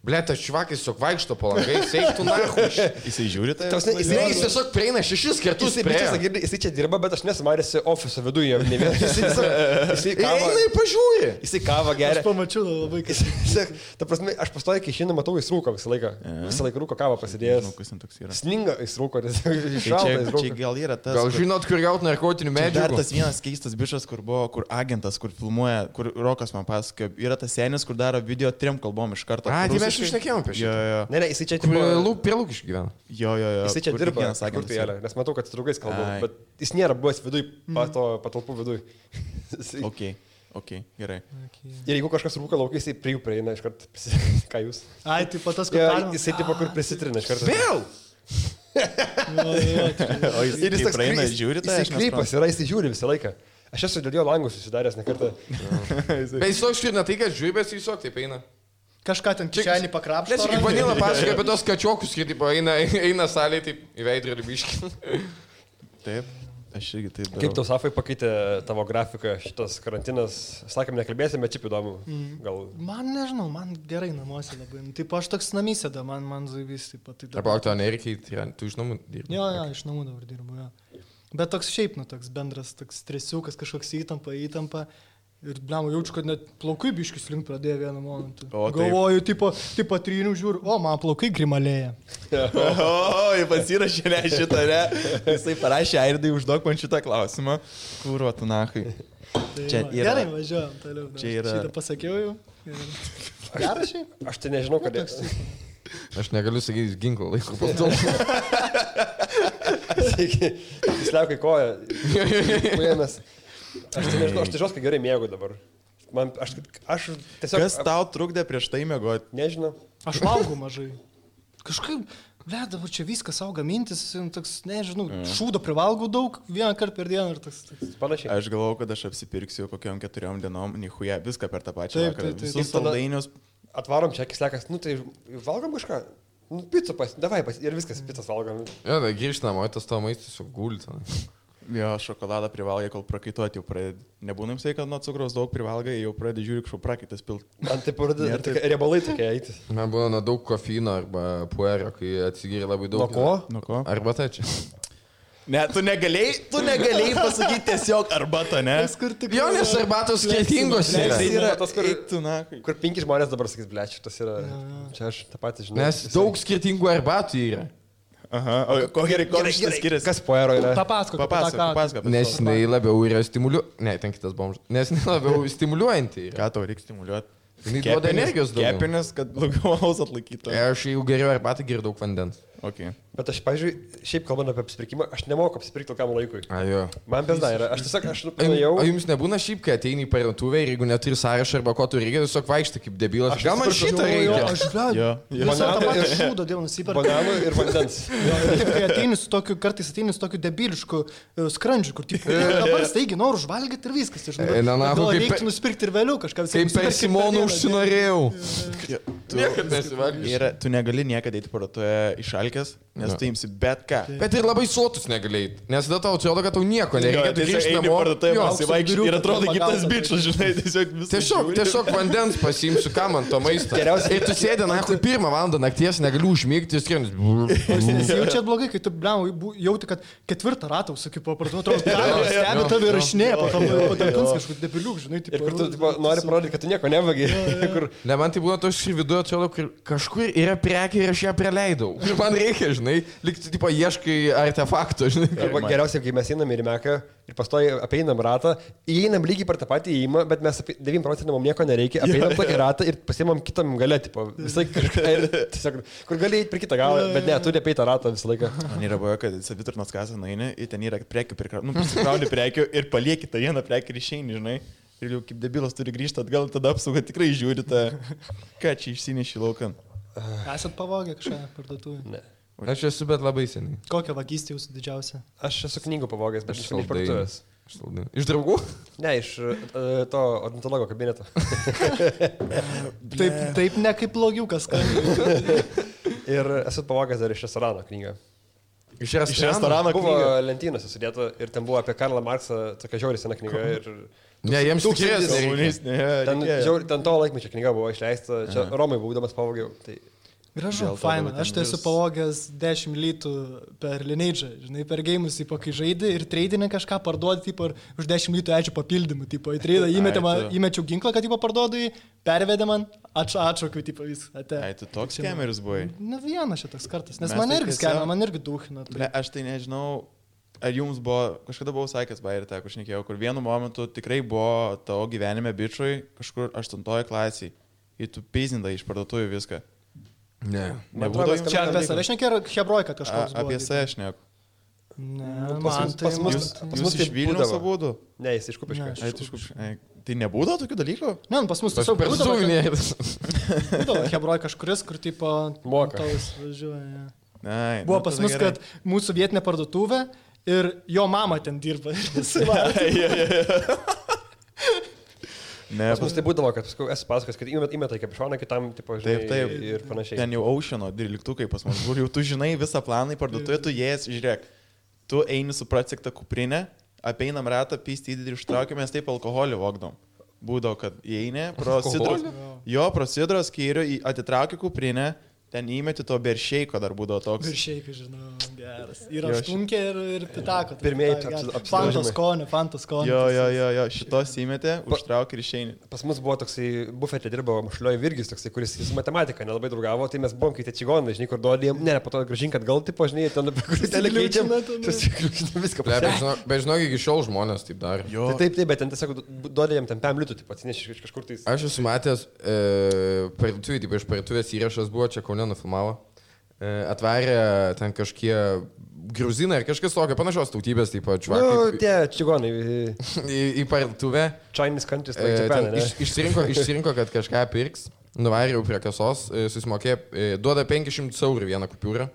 Ble, tas čvakis tiesiog vaikšto po langai, seiktų nahu. Jisai žiūri tai? Jis tiesiog prieina 6 kartus. Jisai čia dirba, bet aš nesumarėsi ofiso viduje. Jisai kavą. Eina į pažiūrį. Jisai kavą geria. Aš pamačiau labai, kad... Ta prasme, aš pastoju, kai šiandien matau, jis rūko visą laiką. Visą laiką rūko kavą pasidėjęs. Sninga jis rūko, nes čia gal yra tas... Gal žinot, kur gauti narkotinių medžiagų? Dar tas vienas keistas bišas, kur buvo, kur agentas, kur filmuoja, kur Rokas man pasakojo, yra tas senis, kur daro video 3 kalbom iš karto. A, tai mes išnekėjom apie šitą. Ne, jisai čia tipo... Prie Lūkiškių gyvena. Jo. Jisai čia dirba, nes matau, kad su draugais kalbu, bet jis nėra buvęs viduj, patalpų viduj. Ok, gerai. Ir jeigu kažkas rūka laukai, jisai prie jų prieina iš karto. Ką jūs? Ai, tai patas, kad... Jisai tipo kur prisitrina iš karto. Vėl! O jisai praeina, žiūri tai? Jisai krypas yra, jisai žiūri visą laiką. Aš esu dėl jo langus susidaręs ne kartą. Bet jis toks ir ne tai, kad žiūri, bet jis tiesiog taip eina. Kažką ten kišenį pakrapšto. Nes kaip Vanila pasakoja apie tos kačiokus, kai taip eina salėje, taip į veidrodį biškį. Taip, aš irgi taip darau. Kaip tau, Safai, pakeitė tavo grafiką šitas karantinas? Sakėm, nekalbėsim, bet šiaip įdomu. Gal... Man nežinau, man gerai namuose labai. Taip, aš toks namysėda, man zaivys taip pat. Arba tu nereikia, tu iš namų dirbi? Jo, iš namų dabar dirbu, jo. Bet toks šiaip, toks bendras, toks stresiukas, kažkoks įtampa. Ir, blemo, jaučiu, kad net plaukai biškis link pradėjo vieną momentą. Galvoju, tipo trynių žiūriu, man plaukai grimalėja. Pasirašė ne šitą, ne? Jisai parašė, Airdai, užduok man šitą klausimą. Kūro, tu nahai. Tai gerai, važiuojam toliau. Šitą pasakiau jau. Gerai šiaip? Aš tai nežinau, kad... Aš negaliu sakyti, ginklo laiko pasdėl. Jis liaukai koją. Aš tai nežinau, aš tai žinau, kad gerai mėgau dabar. Aš tiesiog... Kas tau trukdė prieš tai mėgoti? Nežinau. Aš valgau mažai. Kažkaip, dabar čia viskas auga mintis, toks, nežinau, šūdo privalgau daug, vieną kartą per dieną ir toks. Panašiai. Aš galvau, kad aš apsipirksiu kokiam 4 dienom, nichuja, viską per tą pačią vakarą. Visus saldainius. Atvarom čia, kislekas, tai valgom kažką. Pizza davai ir viskas, pizzas valgom. Jo, tai grįžtam, o tas tavo maistas tiesiog gulti. Jo, šokoladą privalgai, kol prakaituoti jau pradedi. Nebūna jums tai, kad nuo cukraus daug privalgai, jau pradedi žiūri, kažko prakaitas pilt. Man tai pradedi riebalai tokie eiti. Man būna nuo daug kofeino arba puerio, kai atsigiri labai daug. Nuo ko? Arba tai čia. Ne, tu negalėjai pasakyti tiesiog arbatą, ne? Jo, nes arbatos skirtingos yra. Tai yra tas, kur 5 žmonės dabar sakys, blečiu, tas yra. Čia aš tą patį žinau. Nes daug skirtingų arbatų yra. Aha, o ko šitas skiriasi? Kas puero yra? Papasakok. Nes jinai labiau yra stimuliuojanti. Ne, ten kitas bomžas. Nes jinai labiau stimuliuojanti yra. Ką tau reikia stimuliuoti? Jinai duoda energijos daugiau. Kepenis, kad daugiau alaus atlaikytų. Aš jau geriau arbatą geriu daug vandens. Okay. Bet aš, pavyzdžiui, šiaip kalbant apie apsipirkimą, aš nemoku apsipirkti tokiam laikui. Ajo. Man bezda yra. Aš tiesiog, nuėjau. O jums nebūna šiaip, kai ateini į parduotuvę ir jeigu neturi sąrašą arba ko tu reikia, tiesiog vaikštai kaip debilas. Gal man šitą reikia? Aš žinau. Visą tą patį šūdą dėl nusipirkti. Bananų ir vandens. Kai ateini su tokiu, kartais ateini su tokiu debilišku skrandžiu, kur taip, dabar staigi noriu užvalgyti ir viskas. Gal reiktų nusipirkti ir vėliau kažką. Kaip per Simonų užsinorėjau. Tu negali niekada eiti parduotuvę išalgę pelkės, nes tu imsi bet ką. Bet ir labai sotus negalėjai, nes tada tau atrodo, kad tau nieko nereikia, tu grįžti namo. Ir atrodo kitas bičias, žinai, tiesiog vandens pasiimsiu, ką man to maisto. Ir tu sėdė, na, 1 valandą nakties, negaliu užmygti, skrienis. Jaučiat blogai, kai tu, jauti, kad 4 ratą, sakai, po parduotuvę, stebi tave rašinėje, po talkins kažkur debiliuk, žinai. Ir kur tu nori parodyti, kad tu nieko nevagi. Ne, man tai buvo toks viduje, atrodo, kažkur yra prekė ir aš ją praleidau. Ir man reikia, žinai, likti, tipo, ieškai artefaktų, žinai. Arba geriausiai, kai mes einam ir Meką ir pastoji apeinam ratą, įeinam lygiai per tą patį įėjimą, bet mes 9% mums nieko nereikia, apeinam tokį ratą ir pasiimam kitam galę, tipo, visai kažką ir tiesiog, kur gali eiti per kitą galą, bet ne, turi apeiti ratą visą laiką. Man yra buvę, kad savitarnos kasą nueini, ir ten yra prekių, prisikrauni prekių ir palieki tą vieną prekių ir išeini, žinai. Ir jau kaip debilas turi grįžti atgal, tada apsauga tikrai žiūri tą, ką čia išsineši laukan. Esat pavogę kažką parduotuvę? Ne. Aš esu, bet labai seniai. Kokią vagystę jūsų didžiausia? Aš esu knygų pavogęs, bet iš parduotuvės. Iš draugų? Ne, iš to odontologo kabineto. Taip ne kaip blogiukas. Ir esu pavogęs dar iš restorano knygą. Iš restorano buvo lentynose sudėta ir ten buvo apie Karlą Marksą, tokia žiauri sena knyga. Ne, jiems tikės. Ten to laikmečio knyga buvo išleista, čia Romai būdamas pavogiau. Tai gražu, faina. Aš tai esu pavogęs 10 litų per Lineage'ą, žinai, per geimus, kai žaidži ir treidinį kažką parduodi, už 10 litų ačiū papildymų, į treidą įmečiau ginklą, kad parduodu jį, pervedė man, atšaukiu, viską. Ai, tu toks skemeris buvai? Na, vienas šitas kartas, nes man irgi skemė, man irgi duhina. Aš tai nežinau, ar jums buvo, kažkada buvau sakęs, ir teko šnekėjau, kur vienu momentu tikrai buvo tavo gyvenime bičiui kažkur 8 klasiai ir tu pizindai iš parduotuvių viską. Ne. Nebūdavo jums. Čia apie save šnekė ar Hebroj, kad kažkas buvo? Apie save šneku. Ne, man tai... Jūs iš Vilniaus abudu? Ne, jis iš Kupiškio. Tai nebūdavo tokių dalykų? Ne, pas mus tiesiog būdavo Hebroj kažkuris, kur tipo... Moka. Buvo pas mus, kad mūsų vietinė parduotuvė ir jo mama ten dirba. Ne, pas mus tai būdavo, kad esu pasakęs, kad įmeta į kapišoną kitam, tipo, žinai, taip, ir panašiai. Ten jau Oceano dvyliktukai pas mus, kur jau tu žinai visą planą į parduotuvę, tu jas, žiūrėk, tu eini su pratsiktą kuprinę, apeinam ratą, pysti įdėdį ir ištraukiamės, taip alkoholį vogdom. Būdavo, kad įeini, pro sidros skyrių, atitrauki kuprinę, ten įmeti to beršeiko dar būdavo toks. Beršeikai, žinau, geras. Ir aštunkė ir pitako. Pirmieji Fantos skonio. Jo, šitos įmetė, užtrauk ir išeini. Pas mus buvo toksai, bufetė dirbo Mašlioj Virgis, toksai, kuris su matematika nelabai draugavo, tai mes buvom kaip tie čigonai, žinai, kur duodėm, ne, po to grąžink atgal, tipo, žinai, ten kur telekeičiam, viską pasakė. Bet žinok, iki šiol žmonės taip darė. Taip, bet ten tiesiog duodėm ten 5 litų, tipo, atsineši iš kažkur tai. Aš esu matęs, iš parduotuvės įrašas buvo čia nufilmavo, atvarė ten kažkie gruzinai ar kažkas tokio panašios tautybės, taip pat čvakai. Nu, tie čigonai. Į parduotuvę. Chinese countries, like Japan, ne? Išsirinko, kad kažką pirks, nuvarė prie kasos, susimokė, duoda 500 eurų vieną kupiūrą,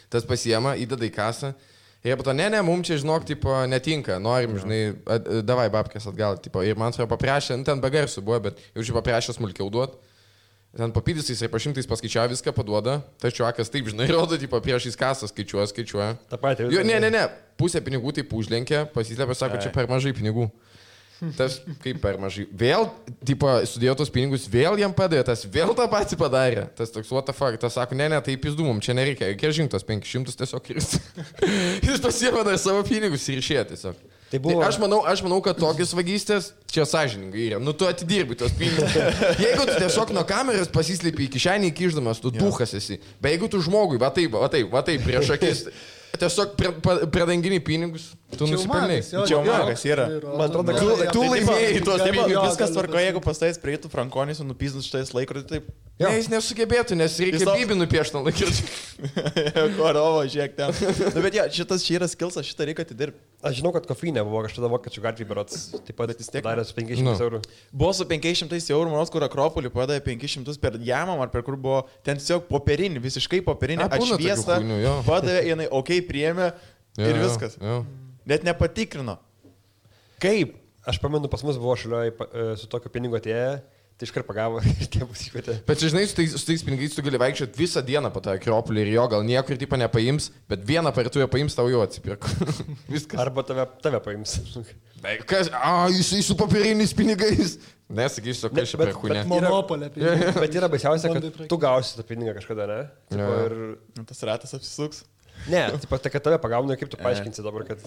tas pasiema, įdeda į kasą. Ir po to, ne, mums čia, žinok, tipo, netinka, norim, žinai, davai babkės atgal, tipo, ir man atrodo paprašė, ten be garsų buvo, bet jau čia paprašė smulkiau duot. Ten papydysais ir pašimtais paskaičiavo viską, paduoda, tačiau akas taip, žinai, rodo, tipo, priešais kasą skaičiuoja. Ta pati. Ne, pusę pinigų taip užlenkė, pasislėpė, sako, čia per mažai pinigų. Tas kaip per mažai. Vėl, tipo, sudėjo tos pinigus, vėl jam padėjo, tas vėl tą patį padarė. Tas toks, what the fuck, tas sako, ne, tai pizdumum, čia nereikia, reikia žingtos 500 tiesiog ir jis pasiėmė dar savo pinigus ir išėjo tiesiog. Tai buvo... aš manau, kad tokios vagystės čia sąžiningai yra. Nu, tu atidirbi tos pinigus. Jeigu tu tiesiog nuo kameros pasislėpi į kišenį įkišdamas, tu duhas esi. Bet jeigu tu žmogui, va taip, prieš akis, tiesiog pradangini pinigus, tu nusipelnai. Čia magas yra. Man atrodo, tu laimėjai tuos pinigus. Viskas tvarko, jeigu pastais prieitų Frankonis ir nupizdus šitais laikrodį, taip. Ne, jis nesugebėtų, nes reikia bibį nupiešti ant laikrodžių. Korovo, žiūrėk ten. Nu, bet šitas čia yra skilsas, šitą reikia atidirbti. Aš žinau, kad kofeinė buvo kažkada vokiečių gatvėje berods, taip pat vis tiek darė su 500 eurų. Buvo su 500 eurų, manos, kur Akropolį padavė 500 per jamam, ar per kur buvo ten tiesiog popierinį, visiškai popierinį, atšviestą, padavė, jinai, okei, priėmė ir viskas. Net nepatikrino. Kaip? Aš pamenu, pas mus buvo šalioj su tokiu pinigu atėję, Tai iškart pagavo ir tėvus iškvietė. Bet žinai, su tais pinigais tu gali vaikščioti visą dieną po tą Akropolį ir jo gal niekur tipo nepaims, bet vieną parduotuvę paims, tau jau atsipirko. Viskas. Arba tave paims. Kas? Jisai su papiriniais pinigais. Nesakysiu, kas čia per kūnė. Monopolė. Bet yra baisiausia, kad tu gausi tą pinigą kažkada, ne? Ir... Tas ratas apsisuks. Ne, tai kad tave pagauna, kaip tu paaiškinsi dabar, kad...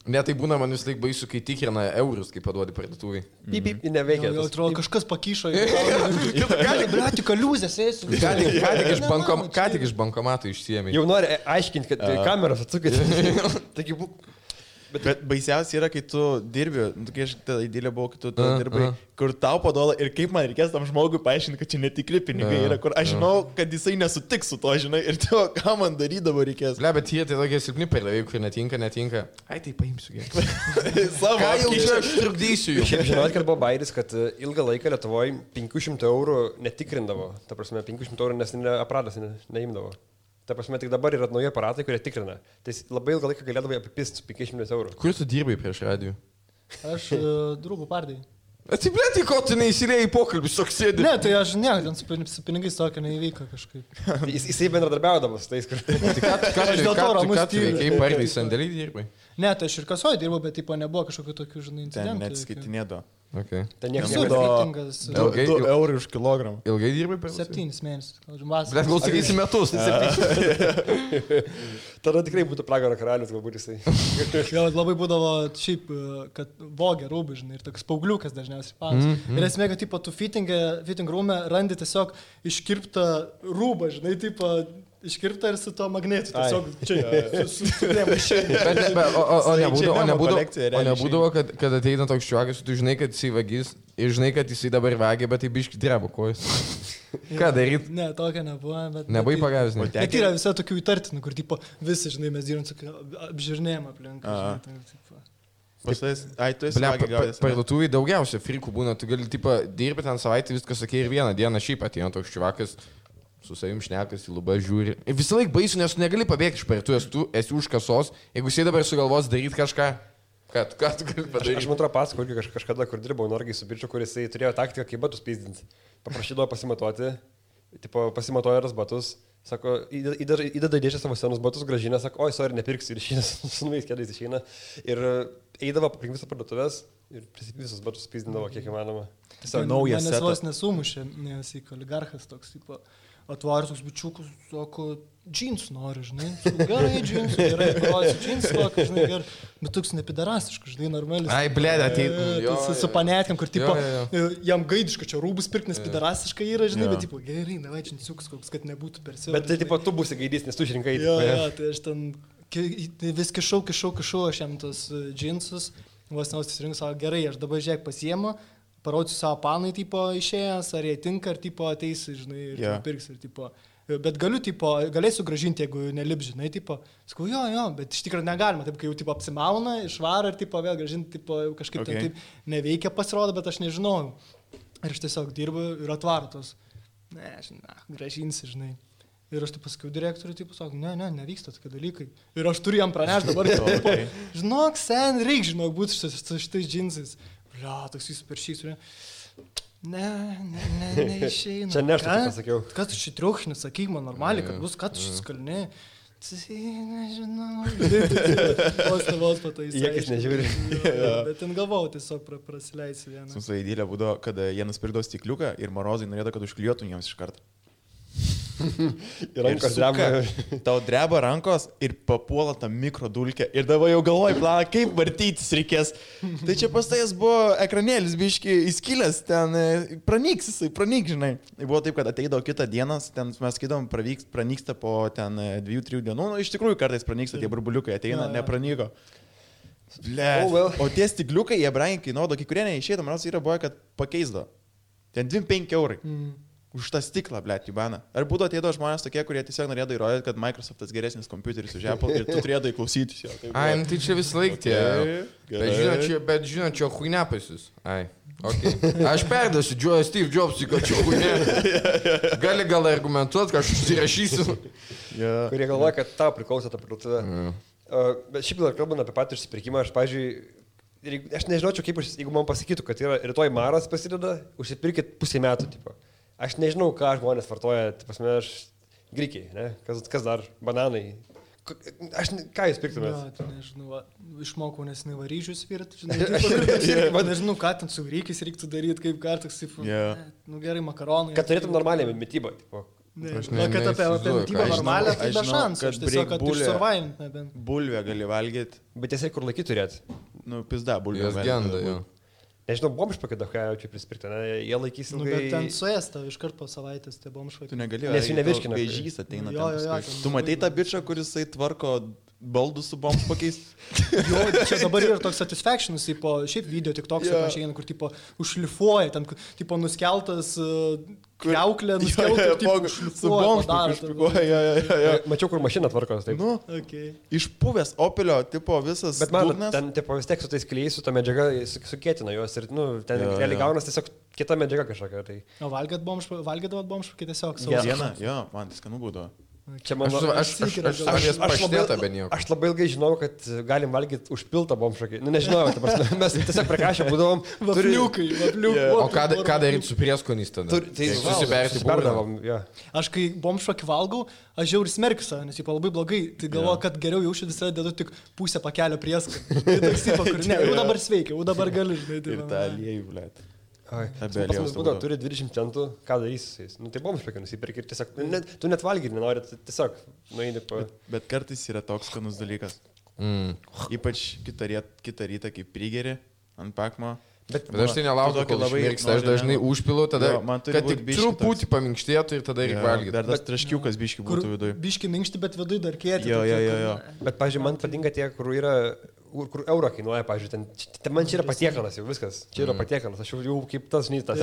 Ne, tai būna man vis laik baisu, kai tikrina eurus, kai paduodi parduotuvai. Pip, neveikia. Jau atrodo, kažkas pakyšo. Gali, blėti, kaliuzės ėsiu. Ką tik iš bankomato išsiėmė. Jau nori aiškinti, kad kameras atsukit. Taigi, Bet baisiausia yra, kai tu dirbi, kai aš tada įdėlė buvau, kai tu dirbai, kur tau paduoda ir kaip man reikės tam žmogui paaiškinti, kad čia netikri pinigai yra, kur aš žinau, kad jisai nesutiks su to, žinai, ir tu, ką man darydavo reikės. Ble, bet jie tai tokie silpni perdavėjai, kur netinka. Ai, tai paimsiu gerai. Ką jau čia aš trukdysiu jų? Šiaip žinot, kad buvo bairis, kad ilgą laiką Lietuvoje 500 eurų netikrindavo. Ta prasme, 500 eurų nes aparatas neimdavo. Ta prasme, tik dabar yra nauji aparatai, kurie tikrina. Tai labai ilgą laiką galėdavai apipist 500 eurų. Kur tu dirbai prieš radijų? Aš draugų pardai. Atsiplėti, ko tu neįsilėjai į pokalbį, soksėdį. Ne, tai aš ne, ten su pinigais tokio neįvyko kažkaip. Jisai bendradarbiaudavo su tais, kur... Ką tu veikiai pardai sandėlį dirbai? Ne, tai aš ir kasoje dirbau, bet tipo nebuvo kažkokių tokių, žinai, Ten incidentų. neatskaitinėdo. Okay. Ten niekas Visur skirtingas. 2 eurų už kilogramą. Ilgai dirbai per 7 mėnesius. Bet gal sakysi metus. Tada tikrai būtų pragaro karalius, galbūt jisai. Gal labai būdavo šiaip, kad vogė rūbai, žinai, ir toks paugliukas dažniausiai panas. Ir esmė, kad tipo tu fitting room randi tiesiog iškirptą rūbą, žinai, tipo iškirptą ir su to magnetu. Tiesiog čia susikrėmė. O nebūdavo, kad ateina toks šiuokas, tu žinai, kad jisai vagis ir žinai, kad jisai dabar vagia, bet tai biški drebo kojas. Ką daryt? Ne, tokio nebuvo, bet... Nebuvai pagavęs, ne? Bet yra visai tokių įtartinų, kur tipo visi, žinai, mes dirbam su apžiūrinėjimą aplink. Parduotuvai daugiausia frikų būna, tu gali dirbti ten savaitę, viskas sakė ir vieną dieną šiaip ateina toks šiuokas. Su savim šnekas, į lubą žiūri. Ir visą laiką baisu, nes tu negali pabėgti iš parduotuvės, tu esi už kasos. Jeigu jisai dabar sugalvos daryti kažką, ką tu gali padaryti? Aš man atrodo pasakau, kažkada, kur dirbau Norgai su bičiu, kuris turėjo taktiką, kaip batus pizdinti. Paprašydavo pasimatuoti, pasimatuoja ras batus, sako, įdeda dėžę savo senus batus, gražina, sako, oi, sorry, nepirksiu ir išeina, su naujais keliais išeina. Ir eidavo aplink visą parduotuvės ir visus batus pizdindavo, kiek įmanoma. Tiesiog naujas setas. Manęs vos nesumušė, nes į oligarchas toks, tipo... Atvaris toks bičiukus, sako, džinsų nori, žinai. Gerai, džinsų, gerai, parodysiu džinsų, tokį, žinai, gerai. Bet toks nepidarastiškas, žinai, normalis. Ai, blėdė, tai... Su panetėm, kur, tipo, jam gaidiška čia rūbus pirkti, nes pidarastiška yra, žinai, bet, tipo, gerai, davai džinsiukus, koks, kad nebūtų per siaurą. Bet tai, tipo, tu būsi gaidys, nes tu išrinkai. Jo, tai aš ten vis kišau, aš jam tos džinsus, vos nesusirinku, sako, gerai, aš dabar žiūrėk pasiemu. Parodžiu savo panai, tipo, išėjęs, ar jie tinka, ar, tipo, ateis, žinai, ir pirks, ir, tipo, bet galėsiu gražinti, jeigu nelip, žinai, tipo, sakau, jo, bet iš tikrųjų negalima, taip, kai jau, tipo, apsimauna, išvaro ir, tipo, vėl gražinti, tipo, kažkaip ten taip neveikia pasirodo, bet aš nežinau. Ir aš tiesiog dirbu ir atvaro tos, gražinsi, žinai. Ir aš taip pasakiau direktoriui, taip sakau, nevyksta tokie dalykai. Ir aš turiu jam pranešti dabar, tipo, žinok, reik, žinok, būti šitais džinsais. Blia, toks jis per šį surė. Neišeina. Čia ne aš taip pasakiau. Ką tu šį triukšinį, sakyk man normaliai, kad bus, ką tu šį skalni. Nežinau. Vos pataisai. Jekis nežiūri. Bet ten galvau, tiesiog prasileisi vieną. Su įdėlė būdavo, kad jie nusipirkdavo stikliuką ir Morozai norėdavo, kad užklijuotum jiems iš karto. Ir rankos dreba. Tau dreba rankos ir papuola tą mikrodulkę. Ir dabar jau galvoji planą, kaip vartytis reikės. Tai čia pastais buvo ekranėlis, biški įskilęs, ten pranyks, žinai. Buvo taip, kad ateidavo kitą dieną, ten mes skaitom, pranyksta po ten 2-3 dienų. Nu, iš tikrųjų kartais pranyksta, tie burbuliukai ateina, nepranyko. O tie stikliukai, jie brangiai kainuodavo, kai kurie neišėdavo, man yra buvo, kad pakeisdavo. Ten 25 eurai. Už tą stiklą, blėt, Jubana. Ar būtų ateido žmonės tokie, kurie tiesiog norėdavo įrodyti, kad Microsoftas geresnis kompiuteris už Apple ir tu turėdavai klausytis jo. Ai, tai čia vis laik tie. Bet žinot, čia huinė pasis. Ai, okei. Aš perdasiu Steve Jobsui, kad čia huinė. Gal argumentuoti, kad aš užsirašysiu. Kurie galvoja, kad tau priklauso ta parduotuvė. Bet šiaip dar kalbant apie patį išsipirkimą, aš, pavyzdžiui, aš nežinočiau, kaip, jeigu man pasakytų, kad yra rytoj maras prasideda, užsipirkit pusę metų, tipo. Aš nežinau, ką žmonės vartoja, grikiai, ne? Kas dar, bananai. Ką jūs pirktumėt? Ja, tai nežinau, išmokau nesinai varyžius virti, žinai, nežinau, ką ten su grikiais reiktų daryti, kaip kartais, gerai, makaronai. Kad turėtum normalią mitybą, tipo. Kad apie mitybą normalią, tai be šansų, aš tiesiog, kad išsurvivint nebent. Bulvę gali valgyti. Bet tiesiog kur laikyti turėti? Pizda, bulvę. Jos genda, jo. Nežinau, bomžpakai daug ką jaučiu prispirti, ne? Jie laikys ilgai. Bet ten suėsta iškart po savaitės tie bomžpakai. Tu negali, nes jų nevirškina. Vėžys ateina. Tu matei tą bičą, kuris tvarko baldus su bomžpakiais? Jo, čia dabar yra toks satisfactionas, šiaip video tik toks, kur tipo užšlifuoja, ten tipo nuskeltas kriauklė, nuskeltas su bomžpakiais. Mačiau, kur mašina tvarkos, taip. Nu, išpuvęs Opelio, tipo visas. Bet man, ten tipo vis tiek su tais klijais, su ta medžiaga sukėtina juos ir, ten realiai gaunas tiesiog kita medžiaga kažkokia. Tai. O valgydavot bomžpakį tiesiog? Vieną, jo, man tai skanu būdavo. Čia mano, aš labai ilgai žinau, kad galim valgyti užpiltą bomžakį. Nu, nežinau, mes tiesiog prekašę būdavom. Vapniukai. O ką daryti su prieskoniais tada? Tai susiberdavom. Aš kai bomžakį valgau, aš žiauriai smerkiu save, nes labai blogai. Tai galvoju, kad geriau jaučiu visada dedu tik pusę pakelio prieskonį. Tai toks kur ne, jau dabar sveikia, jau dabar gali. Ir tą aliejų, blėt. Turi 20 centų, ką darysi su jais. Nu, tai bomžpakai nusipirki ir tiesiog, tu net valgyti nenori, tiesiog nueini po... Bet kartais yra toks skanus dalykas. Ypač kitą rytą, kai prigeri ant pakmo. Bet aš tai nelaukiu, kol išmirksta, aš dažnai užpilu, tada, kad tik truputį paminkštėtų ir tada reikia valgyti. Dar tas traškiukas biški būtų viduje. Biški minkšti, bet viduje dar kėti. Jo. Bet, pavyzdžiui, man patinka tie, kur yra... Kur eurą kainuoja, pavyzdžiui, ten man čia yra patiekalas jau viskas. Čia yra patiekalas, aš jau kaip tas nytas.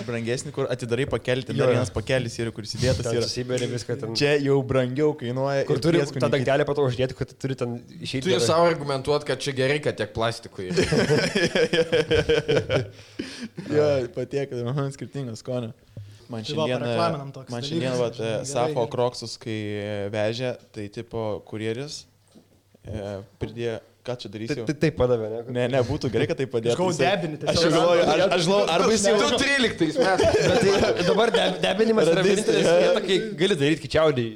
Brangesnį, kur atidarai pakelti, dar vienas pakelis yra, kur įsidėtas yra. Susibėrė viską ten. Čia jau brangiau kainuoja. Kur turi tą dangtelę pato uždėti, kad turi ten išeiti. Turi savo argumentuoti, kad čia gerai, kad tiek plastikų yra. Jo, patiekalas, skirtingas skonio. Man šiandien Safo Kroksus, kai vežė, tai tipo kurjeris. Pridėjo, ką čia darysiu? Tai padavė, ne? Ne, būtų gerai, kad tai padėtų. Aš galvoju debinį. Aš galvoju, arba jis jau... 13 metais. Bet dabar debinimas yra vienintelis vieta, kai gali daryti kičiaudį.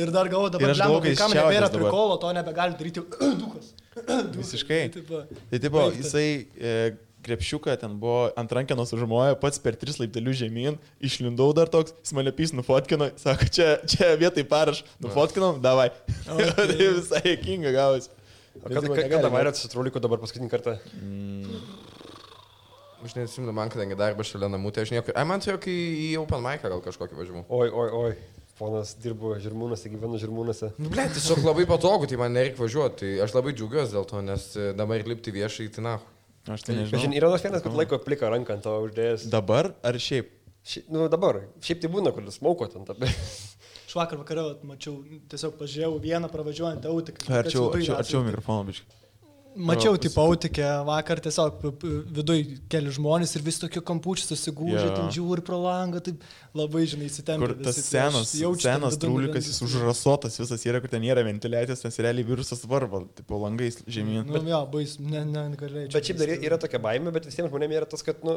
Ir dar galvoju, dabar kam nebėra prikolo, to nebegali daryti dukas. Visiškai. Tai tipo, jisai... krepšiuką, ten buvo ant rankenos užmoja, pats per 3 laiptelius žemyn, išlindau dar toks, jis mane pys nufotkino, sako, čia vietai paraš, nufotkinom, davai. Tai visai juokinga gavosi. Kada vairėt su trauliku dabar paskutinį kartą? Aš neatsimenu, man kadangi darbas šalia namų, tai aš niekur... Man turėjo, kai į Open Mic'ą gal kažkokį važiavau. Oi. Ponas dirbo Žirmūnuose, gyvenu Žirmūnuose. Ble, tiesiog labai patogu, tai man nereikia važiuoti. Tai aš labai džiaugiuosi dėl to, nes dabar lipti viešai, tai na. Aš tai nežinau. Yra nors vienas, kad laiko pliką ranką ant to uždėjęs. Dabar ar šiaip? Nu dabar. Šiaip tai būna, kur smauko ten tabė. Aš vakar vakarą mačiau, tiesiog pažiūrėjau vieną pravažiuojantį autiką. Arčiau mikrofono biškai. Mačiau, tipo, autikę vakar tiesiog viduj keli žmonės ir vis tokio kampučių susigūžė, ten žiūri pro langą, taip labai, žinai, įsitempė. Kur tas senas trūlikas, jis užrasotas visas yra, kur ten nėra ventiliacijos, nes realiai virusas varva, tipo, langais žemyn. Nu, jo, bais, negalėjau. Bet šiaip dar yra tokia baimė, bet visiems žmonėms yra tas, kad, nu,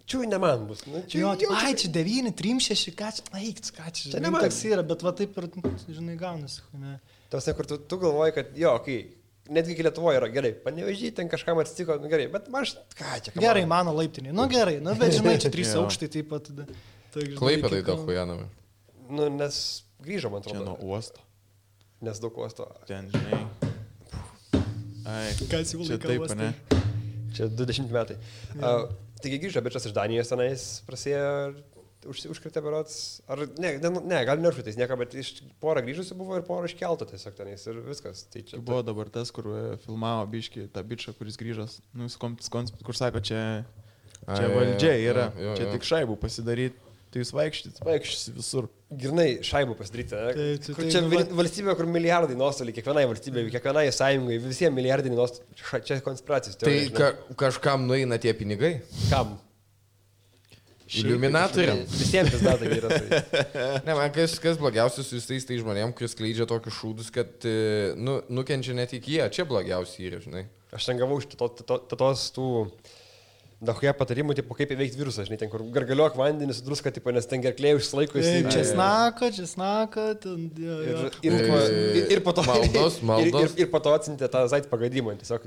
čiūj ne man bus. Nu, ai, čia 9, 3, 6, ką čia, čia ne man. Toks yra, bet va taip ir, žinai, gaunasi. Tas, kur tu galvoji, kad, jo, kai... Netgi iki Lietuvoje yra gerai, Panevėžy ten kažkam atsitiko, nu gerai, bet aš, ką čia? Gerai, mano laiptinė, nu gerai, nu bet žinai, čia 3 aukštai taip pat. Klaipėdai daug hujanami. Nu, nes grįžo, man atrodo. Čia nuo uosto. Nes daug uosto. Ten, žinai. Ai, kas jau čia taip, ne? Čia 20 metai. Taigi grįžo bičas iš Danijos tenais, prasėjo... Užkritė berots, ar ne, gal neužkritais nieko, bet iš porą grįžusių buvo ir porą iškeltų tiesiog tenais ir viskas. Tai čia buvo dabar tas, kur filmavo biškį tą bičą, kuris grįžas, nu, kur sako, čia valdžia yra, čia tik šaibų pasidaryti, tai jūs vaikščiasi visur. Girnai šaibų pasidaryti, ne? Čia valstybė, kur milijardai nuostoliai, kiekvienai valstybė, kiekvienai sąjungai, visiems milijardai nuostoliai, čia konspiracijos. Tai kažkam nueina tie pinigai? Kam? Iliuminatoriam. Visiems vis dar tai yra. Ne, man kas blogiausias su visais tai žmonėm, kuris skleidžia tokius šūdus, kad nukenčia net iki jie. Čia blogiausiai yra, žinai. Aš ten gavau iš tos tų dahuja patarimų, tipo, kaip įveikti virusą, žinai, ten kur gargaliuok vandenį su druska, tipo, nes ten gerklė užsilaiko. Česnaka. Ir po to maldos. Ir po to atsintė tą zait pagadimą, tiesiog.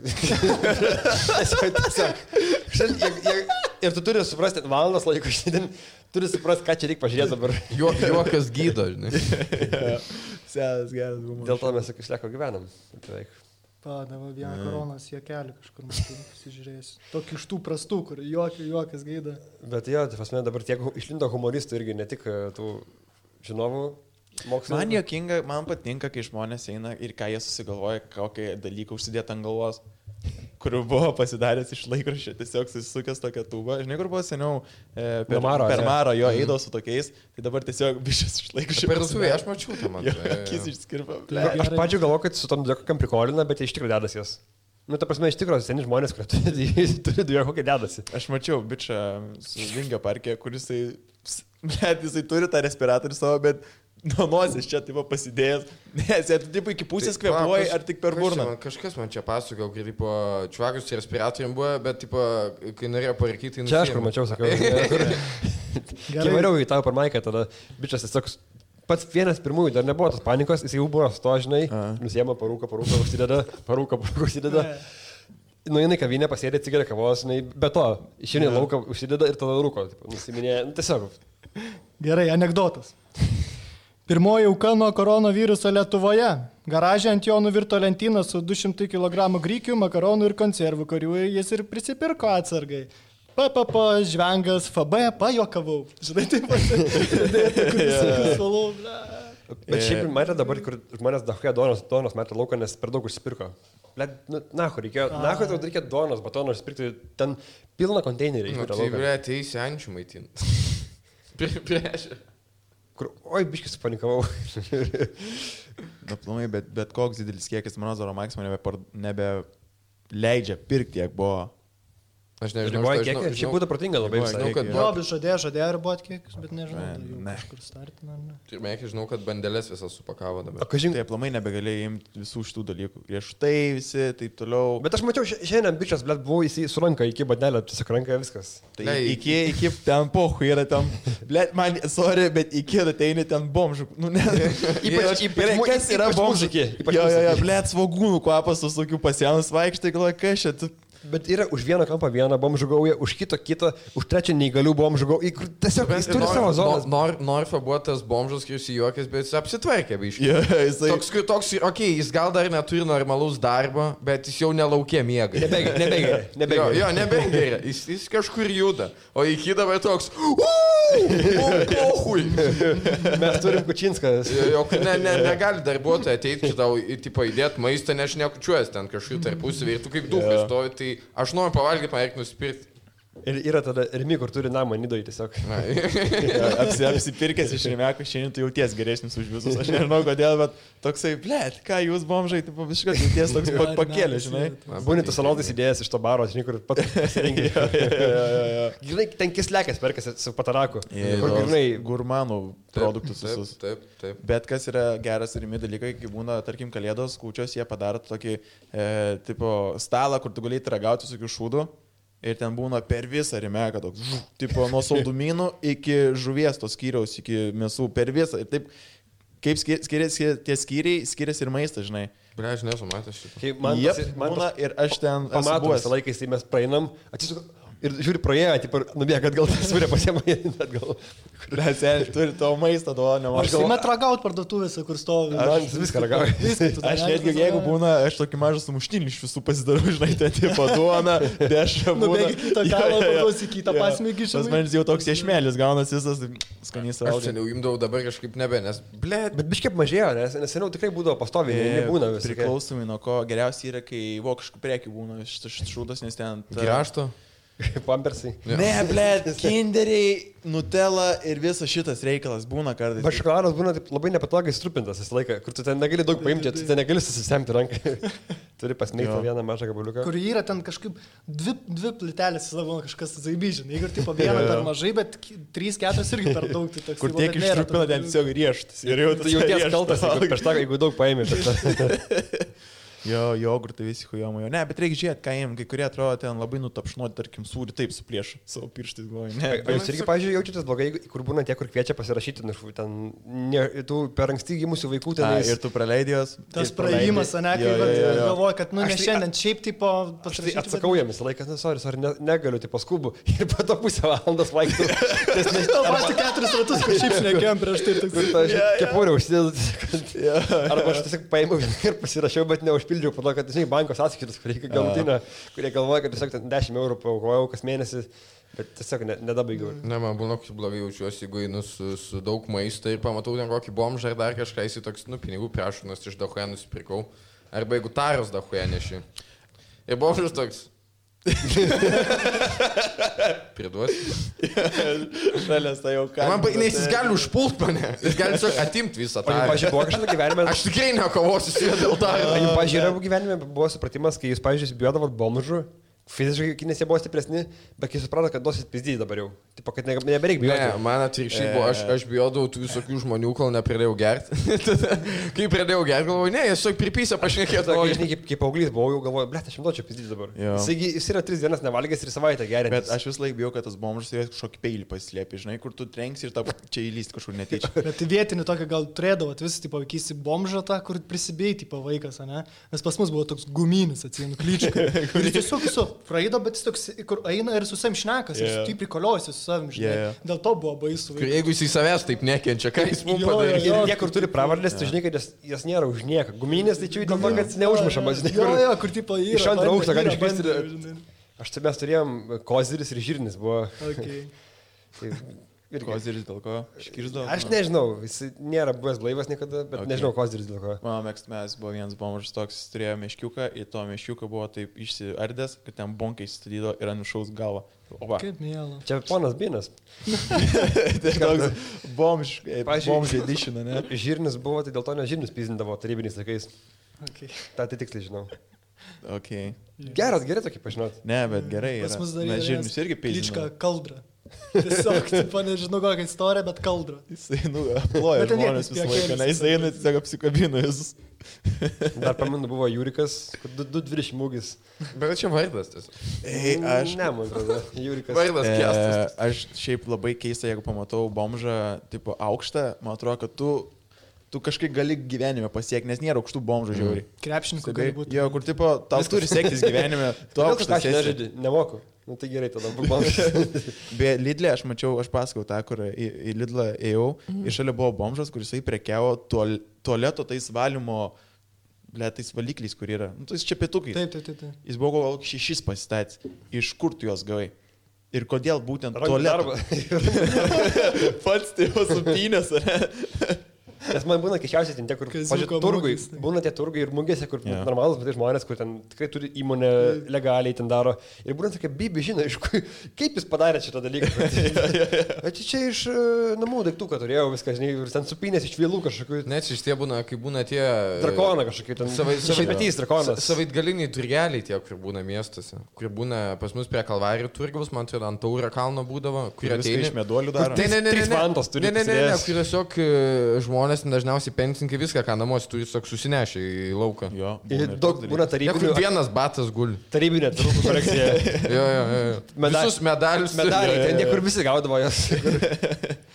Ir tu turi suprasti, valandas laiko šiandien, turi suprasti, ką čia reikia pažiūrėti dabar. Juokas gydo, žinai. Senas geras humoras. Dėl to mes išlieko gyvenam. Padavo vieną koronos juokelį kažkur pasižiūrėsiu. Tokį iš tų prastų, kur juokas gaida. Bet jo, tai pasme dabar tiek išlindo humoristų irgi, ne tik tų žinovų mokslo. Man juokinga, man patinka, kai žmonės eina ir ką jie susigalvoja, kokį dalyką užsidėti ant galvos, kur buvo pasidaręs iš laikraščio, tiesiog susisukęs tokią tūbą. Žinai, kur buvo seniau per Marą jo eidavo su tokiais, tai dabar tiesiog bišas iš laikraščio. Per suvė, aš mačiau tą man. Akis išskirpa. Aš pačiu galvoju, kad su tom dviekokiam prikolina, bet iš tikrųjų dedas jas. Nu, ta prasme, iš tikrųjų seni žmonės, kurie turi dviekokiai dedasi. Aš mačiau bičą su Vingio parke, kuris jisai turi tą respiratorių savo, bet nuo nosies čia taip pasidėjęs. Nes jie taip iki pusės kvėpuoja ar tik per burną. Kažkas man čia pasakojo, kai tipo čvagus respiratorium buvo, bet tipo, kai norėjo parkyti... Čia aš kur mačiau, sakau. Kai variau į tavo per maiką, tada bičas tiesiog pats vienas pirmųjų, dar nebuvo tos panikos, jis jau buvo sto, žinai, nusiema parūką užsideda, parūką užsideda. Nueina į kavinę, pasėdė cigarę kavos, žinai, be to, išeina į lauką, užsideda ir tada rūko, nusiminė, tiesiog. Gerai, anekdotas. Pirmoji auka nuo koronaviruso Lietuvoje. Garaže ant jo nuvirto lentyną su 200 kg grikių, makaronų ir konservų, kurių jis ir prisipirko atsargai. Žvengas, FB, pajokavau. Žinai, taip pat. Bet šiaip matė dabar, kur žmonės dahuja duonos metą lauką, nes per daug užsipirko. Reikėjo duonos, batono užsipirkti, ten pilną konteinerį. Ateisi ančių maitinti. Prieš. Kur, oi, biškis supanikavau. Aplamai, bet koks didelis kiekis, mano Zoro Maximo nebeleidžia pirkti, kiek buvo. Aš nežinau, šiaip būtų protinga labai visai. Jobis žadėjo riboti kiekius, bet nežinau, kažkur startina. Pirmiekiai žinau, kad bandelės visas supakavo dabar. Tai aplamai nebegalėjai imti visų šitų dalykų. Riešutai visi, taip toliau. Bet aš mačiau, šiandien bičias, blėt, buvo jis su ranka iki bandelę, tiesiog ranka viskas. Tai iki ten pohu yra ten, blėt, man, sorry, bet iki ateini ten bomžų. Nu, ne. Ypač kas yra bomžų? Jo, blėt, svogūnų kvapas su tokiu pasienus vaikštai, galvoja, kas čia. Bet yra už vieną kampą vieną bomžų gaują, už kitą, už trečią neįgalių bomžų gaują. Tiesiog jis turi savo zoną. Norfa buvo tas bomžas, kuris juokės, bet jis apsitvarkė, biškai. Toks, jis gal dar neturi normalaus darbo, bet jis jau nelaukė miega. Nebegeria. Jo, nebegeria. Jis kažkur juda. O iki dabar toks... Mes turim Kučinskas. Negali darbuotojai ateiti, tau įdėti maistą, nes nekučiuojas ten kažkur tarpusavį ir tu kaip duhas stovi, tai aš noriu pavalgyti, man reikia nusipirkti. Ir yra tada Rimi, kur turi namą Nidoj tiesiog. Apsipirkęs iš Rimeko, šiandien tu jauties geresnis už visus. Aš nežinau kodėl, bet toksai, blėt, ką jūs bomžai, tai visiškai jauties toks pakėlė, žinai. Būni tu salonais idėjas iš to baro, žinai, kur pat pasirinkė. Žinai, ten kislekas perkasi su pataraku. Kur žinai, gurmanų produktus visus. Taip. Bet kas yra geras Rimi dalykai, kai būna, tarkim, kalėdos, kūčios, jie padaro tokį tipo stalą, kur tu galėjai ragauti visokių šūdų. Ir ten būna per visą Rimeką, toks, tipo, nuo saldumynų iki žuvies tos skyriaus, iki mėsų, per visą. Ir taip, kaip skiriasi tie skyriai, skiriasi ir maistas, žinai. Ble, aš nesu matęs šitą. Man būna ir aš ten pamatau visą laiką, kai mes praeinam, atsisuku. Ir žiūri praėjo, tipo, nubėga atgal, surė pasiema atgal. Seniai, turi to maistą, to nemažai. Aš galvoju, ragaut parduotuvėse, kur stovi. Aš viską ragauju. Aš netgi, jeigu būna, aš tokį mažą sumuštinį iš visų pasidarau, žinai, ten tipo duona, dešra būna. Nubėgi kitą kalą, paduosi kitą pasmėgį, žinai. Tas manis jau toks iešmėlis, gaunas visas, skanys raugas. Aš seniau imdavau, dabar kažkaip nebe, nes, blėt. Bet biškiai mažėjo, nes seniau tikrai būdavo pastoviai, nebūna visą. Priklausomai nuo ko, geriausiai yra, kai vokiškų prekių būna šitas šūdas, nes ten... Grašto? Pampersai. Ne, blėt, kinderiai, Nutella ir visas šitas reikalas būna kartais. Bet šokoladas būna taip labai nepatogiai strupintas visą laiką, kur tu ten negali daug paimti, tu ten negali susisemti ranką. Turi pasmeigti vieną mažą gabaliuką. Kur yra ten kažkaip dvi plytelės, savo kažkas zaibyžin. Jeigu tipo vieną per mažai, bet 3-4 irgi per daug. Tai kur tiek ištrupina ten tiesiog rieštas. Ir jau tu jauties kaltas, jeigu daug paimi. Jo, jogurtai visi hujomo. Ne, bet reikia žiūrėti, ką jiem, kai kurie atrodo ten labai nutapšnuoti, tarkim, sūrį taip suplėšų savo pirštais galvoju. O jūs irgi, pavyzdžiui, jaučiatės blogai, kur būna tie, kur kviečia pasirašyti, ten, tų per anksti gimusių vaikų ten. Ir tu praleidėjos. Tas praėjimas, ne, kai galvoju, kad, ne šiandien šiaip tipo pasirašyti. Atsakau jiems laikas, sorry, negaliu, tipo skubu. Ir po to pusę valandos vaiktų. Tau pati 4 ratus, kai šiaip šnekėjom prieš tai. Kepurę užsidėdu. Arba aš tiesiog paėmiau ir pasirašiau, bet neužpildžiau. Po to, kad bankos atskaitos, kur reikia galutinę, kurie galvoja, kad tiesiog 10 eurų paaukojau kas mėnesį, bet tiesiog nedabaigiau. Ne, man būna, kaip blogai jaučiuosi, jeigu einu su daug maisto ir pamatau ten kokį bomžą ar dar kažką, jis toks, pinigų prašau, nes iš dahuė nusipirkau. Arba jeigu taros dahuė neši. Ir bomžas toks. Priduosi. Šalės tai jau ką. Nes jis gali užpult mane. Jis gali tiesiog atimti visą tą. Pavyzdžiui, buvo kažkada gyvenime. Aš tikrai nekovosiu su juo dėl to. Pavyzdžiui, gyvenime buvo supratimas, kai jūs, pavyzdžiui, bijodavot bomžų. Fiziškai, nes jie buvo stipresni, bet kai suprato, kad duosit pizdyti dabar jau. Tipo, kad nebereik bijoti. Ne, man atvirkščiai buvo, aš bijodavau tų visokių žmonių, kol nepradėjau gerti. Kai pradėjau gerti, galvoju, ne, jis tiesiog pripysė pašnekėti. Žinai, kaip paauglys buvau, jau galvoju, blėt, aš duočiau pizdyti dabar. Jis yra 3 dienas nevalgęs ir savaitę gerinti. Bet aš vis laik bijau, kad tas bomžas turės kažkokį peilį paslėpti, žinai, kur tu trenksi ir čia įlysti kažkur netyčia. Bet vietinį tokį gal turėdavot, visi, tipo, vykysi bomžą tą, kur prisibėjai, tipo, vaikas, ne? Nes pas mus buvo toks guminis, atsienu, klyčka. Ir tiesiog praeido, bet jis toks, kur eina ir su savim šnekas, ir tu prikoliuosi su savim, žinai. Dėl to buvo baisu. Jeigu jis į savęs taip nekenčia, ką jis mums padarė? Ir niekur turi pravardės, tu žinai, kad jas nėra už nieką. Guminės, tai čia dėl to, kad neužmušamas. Jo, kur tipo yra. Iš antro aukšto gali iškristi. Mes turėjom koziris ir žirnis buvo. Ir koziris dėl ko? Iškirsdavo? Aš nežinau, jis nėra buvęs blaivas niekada, bet nežinau koziris dėl ko. Mano mėgstamiausias buvo vienas bomžas toks, jis turėjo meškiuką, į to meškiuką buvo taip išsiardęs, kad ten bonkai įsistatydo ir nušaus galvą. Kaip mėla. Čia ponas Binas. Tai toks bomž edition, ne? Žirnis buvo, tai dėl to ne žirnis pizdindavo tarybiniais laikais. Ta tai tiksliai žinau. Gerai tokį pažinot. Ne, bet gerai. Pas mus dar yra žirnis irgi pizdina. Klička Kaldra. Tiesiog, tipo, nežinau kokią istoriją, bet Kaldra. Jisai, aploja žmonės visą laiką, ne, jisai eina, tiesiog apsikabina visus. Dar pamenu, buvo Jūrikas, 220 mūgis. Bet čia vardas tiesiog. Aš... Ne, man atrodo, Jūrikas. Vardas kestas. Aš šiaip labai keista, jeigu pamatau bomžą, tipo, aukštą, man atrodo, kad tu kažkaip gali gyvenime pasiekti, nes nėra aukštų bomžų žiauriai. Krepšininkų gali būti. Jo, kur tipo, tau turi sektis gyvenime, tu aukštas esi. Nemoku. Nu tai gerai, tada bomžas. Be Lidlė, aš pasakau tą, kur į Lidlą ėjau, ir šalia buvo bomžas, kuris prekiavo tualeto tais valymo, tais valikliais, kur yra. Nu, tais čepėtukais. Taip. Jis buvo gal 6 pasistatęs. Iš kur tu juos gavai? Ir kodėl būtent tualetą? Pats tai jau supynės, ar ne? Nes man būna keščiausiai ten tie, kur turgui, būna tie turgai ir mugėse, kur normalus, bet tai žmonės, kur ten tikrai turi įmonę legaliai ten daro. Ir būna tokia bibi, žinai, kaip jis padarė šitą dalyką. Bet čia iš namų daiktų, kad turėjau viską, žinai, ir ten supinės iš vėlų kažkokių. Net iš tie būna, kai būna tie... Drakoną kažkokių, ten šaipetys drakonas. Savaitgaliniai turgeliai tie, kur būna miestuose. Kur būna pas mus prie Kalvarijų turgaus, man atrodo, ant Tauro kalno būdavo. Kur ateina iš meduolių daro. Ne, kur tiesiog žmonės dažniausiai pensininkai viską, ką namuose turi, tiesiog susinešę į lauką. Jo. Ir daug būna tarybinių. Vienas batas guli. Tarybinė turgų kolekcija. Jo. Visus medalius. Medaliai, ten niekur visi gaudavo jas.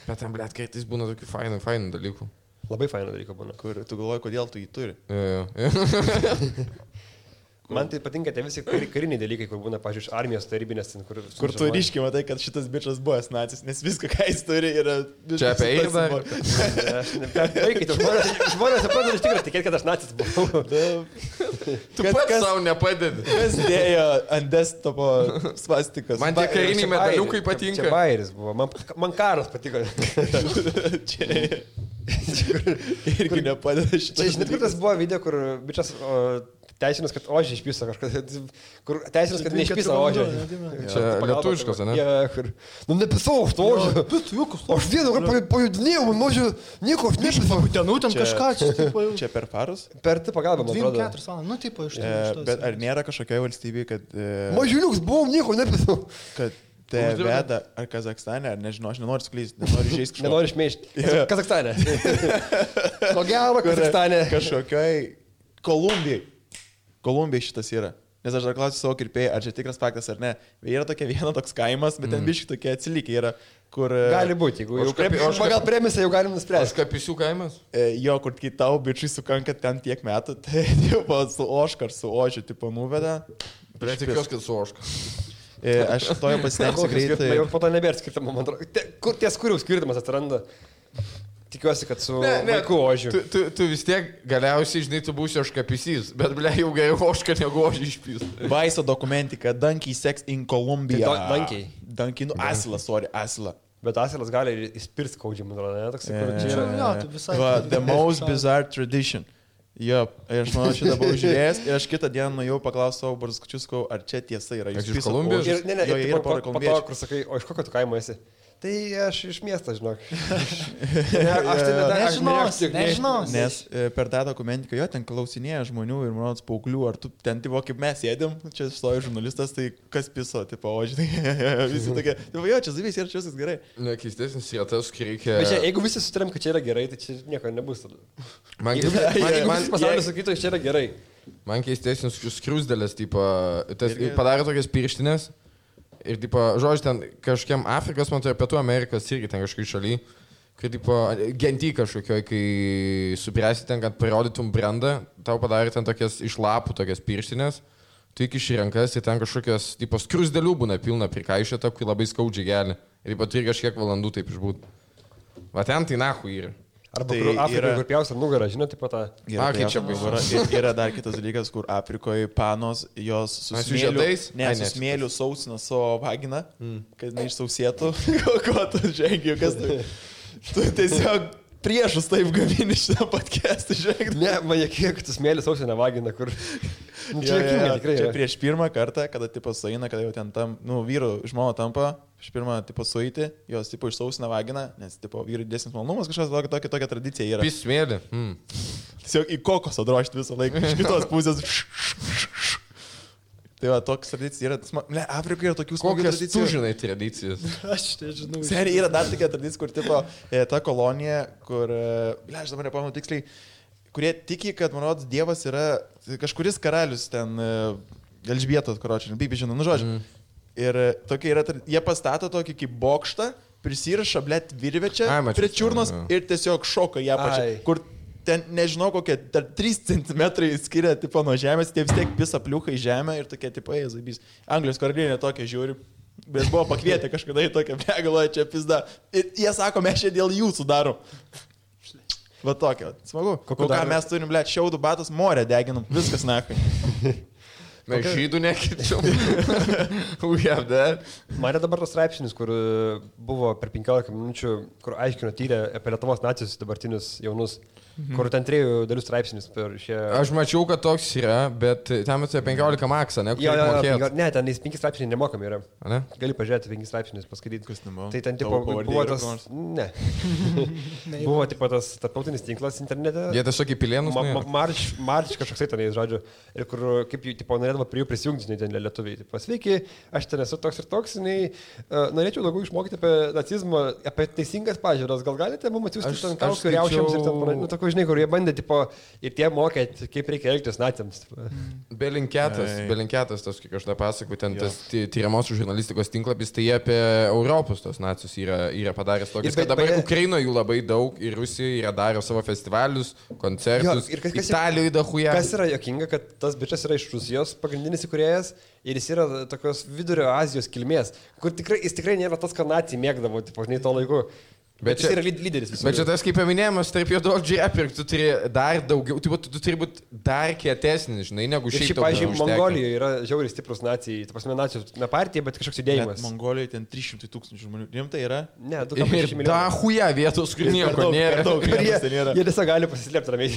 Bet ten, blėt, kartais būna tokių fainų dalykų. Labai fainų dalykų būna. Kur tu galvoji, kodėl tu jį turi. Jo. Man tai patinka tie visi kariniai dalykai, kur būna, pažiūrėjau, armijos tarybinės, kur tu ryškiai matai, kad šitas bičias buvęs nacis, nes viską, ką jis turi, yra... Čia apie eirą. Vaikai, žmonės pradeda iš tikrųjų tikėti, kad aš nacis buvau. Tu pats savo nepadedi. Kas dėjo ant desktopo svastikas? Man tie kariniai medaliukai patinka. Čia bairis buvo, man karas patiko. Irgi nepadeda šitą. Žinai, kur tas buvo video, kur bičias teisinas, kad ožį išpisa kažkas. Kur teisinas, kad neišpisa ožį. Čia lietuviškas, ne? Kur... Nu, nepisau aš to ožį. Aš vieną kartą pajudinėjau, man ožį nieko aš nepisau. Ten kažką čia. Čia per farus? Per tai pagalbą, man atrodo. 2-4 valandas, nu taip, iš to. Bet ar nėra kažkokioje valstybėje, kad... Mažiuliuks buvom, nieko nepisau. Kad te veda ar Kazakstane, ar nežinau, aš nenoriu sklysti, nenoriu žaisti kažko. Nenoriu šmeižti. Kazakstane. Ko gero, Kazakstane. Kažkokioj Kolumbijai šitas yra. Nes aš dar klausiu savo kirpėjai, ar čia tikras faktas ar ne. Yra tokia viena toks kaimas, bet ten biškai tokie atsilikę yra, kur... Gali būti, jeigu jau pagal premisą jau galim nuspręsti. Kapisių kaimas? Jo, kur kai tau bičiai sukanka ten tiek metų, tai tipo, su oškar, su ožiu, tipo, nuveda. Bet tikiuosi, kad su oška. Aš toje pasitengsiu greitai. Jau po to nebėra skirtumo, man atrodo. Ties kurių skirtumas atsiranda. Tikiuosi, kad su vaiku ožiu. Tu vis tiek galiausiai, žinai, tu būsi oškapysys, bet ble, jau geriau oška negu ožį išpys. Vaiso dokumentika, Donkey Sex in Colombia. Donkey, nu Asilas, Asila. Bet asilas gali įspirti skaudžiai, man atrodo, ne? Toksai, kur čia yra. The most bizarre tradition. Jo, aš manau, šitą buvau žiūrėjęs ir aš kitą dieną nuėjau paklausti savo barzgučius, ar čia tiesa yra. Jūs iš Kolumbijos? Ne, ir po to, kur sakai, o iš kokio tu kaimo esi? Tai aš iš miesto, žinok. Nežinos. Nes per tą dokumentiką jo ten klausinėja žmonių ir mano paauglių, ar tu ten, tipo, kaip mes sėdėm, čia stojo žurnalistas, tai kas piso, tipo, o žinai, visi tokie, tipo, jo, čia zavys ir čia viskas gerai. Nekeistesnis yra tas, kai reikia... Bet čia, jeigu visi sutarėm, kad čia yra gerai, tai čia nieko nebus tada. Man pasaulis sakytų, čia yra gerai. Man keistesnis skruzdėlės, tipo, padarė tokias pirštinės. Ir, tipo, žodžiu, ten kažkiam Afrikos, man tai Pietų Amerikos irgi ten kažkai šaly, kai, tipo, genty kažkokioj, kai supręsi ten, kad parodytum brandą, tau padarė ten tokias iš lapų, tokias pirštinės, tu įkiši rankas ir ten kažkokios, tipo, skruzdėlių būna pilna prikaišėta, kai labai skaudžiai gali. Ir, tipo, turi kažkiek valandų taip išbūt. Va ten tai nahu yra. Arba tai Afrikoje, kur pjausia nugarą, žinai, taip pat tą... Yra dar kitas dalykas, kur Afrikoje panos jos su smėliu sausina savo vaginą, kad neišsausėtų. Ko tu žengi, kas tu... Tu tiesiog priešus taip gamini šitą podcastą, žinai. Ne, man kiek tu smėliu sausina vaginą, kur... Čia prieš pirmą kartą, kada tipo sueina, kada jau ten tam, nu, vyrų žmona tampa, iš pirmą tipo sueiti, jos tipo išsausina vaginą, nes tipo vyrų didesnis malonumas, kažkas tokia tradicija yra. Pis smėlį. Tiesiog į kokosą drožti visą laiką, iš kitos pusės. Tai va, toks tradicija yra, ne, Afrikoje yra tokių smagių tradicijų. Kokias tu žinai tradicijas? Aš nežinau. Seriai yra dar tokia tradicija, kur tipo, ta kolonija, kur, aš dabar nepamenu tiksliai, kurie tiki, kad, man rodos, Dievas yra kažkuris karalius ten, Elžbietos, karočiui, taip žinau, nu žodžiu. Ir tokia yra, jie pastato tokį kaip bokštą, prisiraša, blėt, virvečią prie čiurnos ir tiesiog šoka ją pačią, kur ten, nežinau, kokie 3 cm skiria, tipo, nuo žemės, tie vis tiek pisa pliukai žemę ir tokie, tipo, zabys. Anglijos karalienė tokia žiūri, bet buvo pakvietę kažkada į tokią begaloją čia pizda. Ir jie sako, mes čia dėl jūsų darom. Va tokia, smagu. Ką mes turim, blėt, šiaudų batus, morę deginam, viskas nakai. Mes žydų nekičiam. Mane dabar tas straipsnis, kur buvo per 15 minučių, kur aiškino tyrė apie Lietuvos nacijus dabartinius jaunus, kur ten 3 dalių straipsnis per šią... Aš mačiau, kad toks yra, bet ten apie 15 maksą, ne? Ne, ten 5 straipsniai nemokami yra. Ne? Gali pažiūrėti 5 straipsnius, paskaityti. Kas nebuvo? Tai ten tipo buvo tas... Ne. Buvo tipo tas tarptautinis tinklas internete. Jie tiesiog į pilėnus. Marč kažkoksai tenais, žodžiu. Ir kur, kaip jų, tipo, norėdavo prie jų prisijungti, žinai, ten lietuviai. Tipo, sveiki, aš ten esu toks ir toks, žinai, norėčiau daugiau išmokyti apie nacizmą, apie teisingas pažiūras. Gal galite mums atsiųsti ten kaukių riaušiams ir ten, nu, žinai, kur jie bandė, tipo, ir tie mokėt, kaip reikia elgtis naciams. Belinketas, tas, kaip aš tą pasakoju, ten tas tyriamosios žurnalistikos tinklapis, tai jie apie Europos tos nacius yra padaręs tokius, kad dabar Ukrainoje jų labai daug ir Rusijoje yra darę savo festivalius, koncertus, Italijoje dahuja. Kas yra jokinga, kad tas bičias yra iš Rusijos pagrindinis įkūrėjas ir jis yra tokios vidurio Azijos kilmės, kur jis tikrai nėra tas, ką nacijai mėgdavo, tipo, žinai, to laiku. Bet jis yra lyderis visų. Bet čia tas kaip paminėjimas, tarp juododžiai apirkti, tu turi dar daugiau, tu turi būti dar kietesnis, žinai, negu šiaip. Šiaip, pavyzdžiui, Mongolijoje yra žiauriai stiprus nacijai, ta prasme, nacijos, ne partija, bet kažkoks judėjimas. Mongolijoje ten 300 000 žmonių. Rimtai yra? Ne, 2,6 milijonų. Da huja vietos, kur nieko nėra. Jie tiesiog gali pasislėpti ramiai.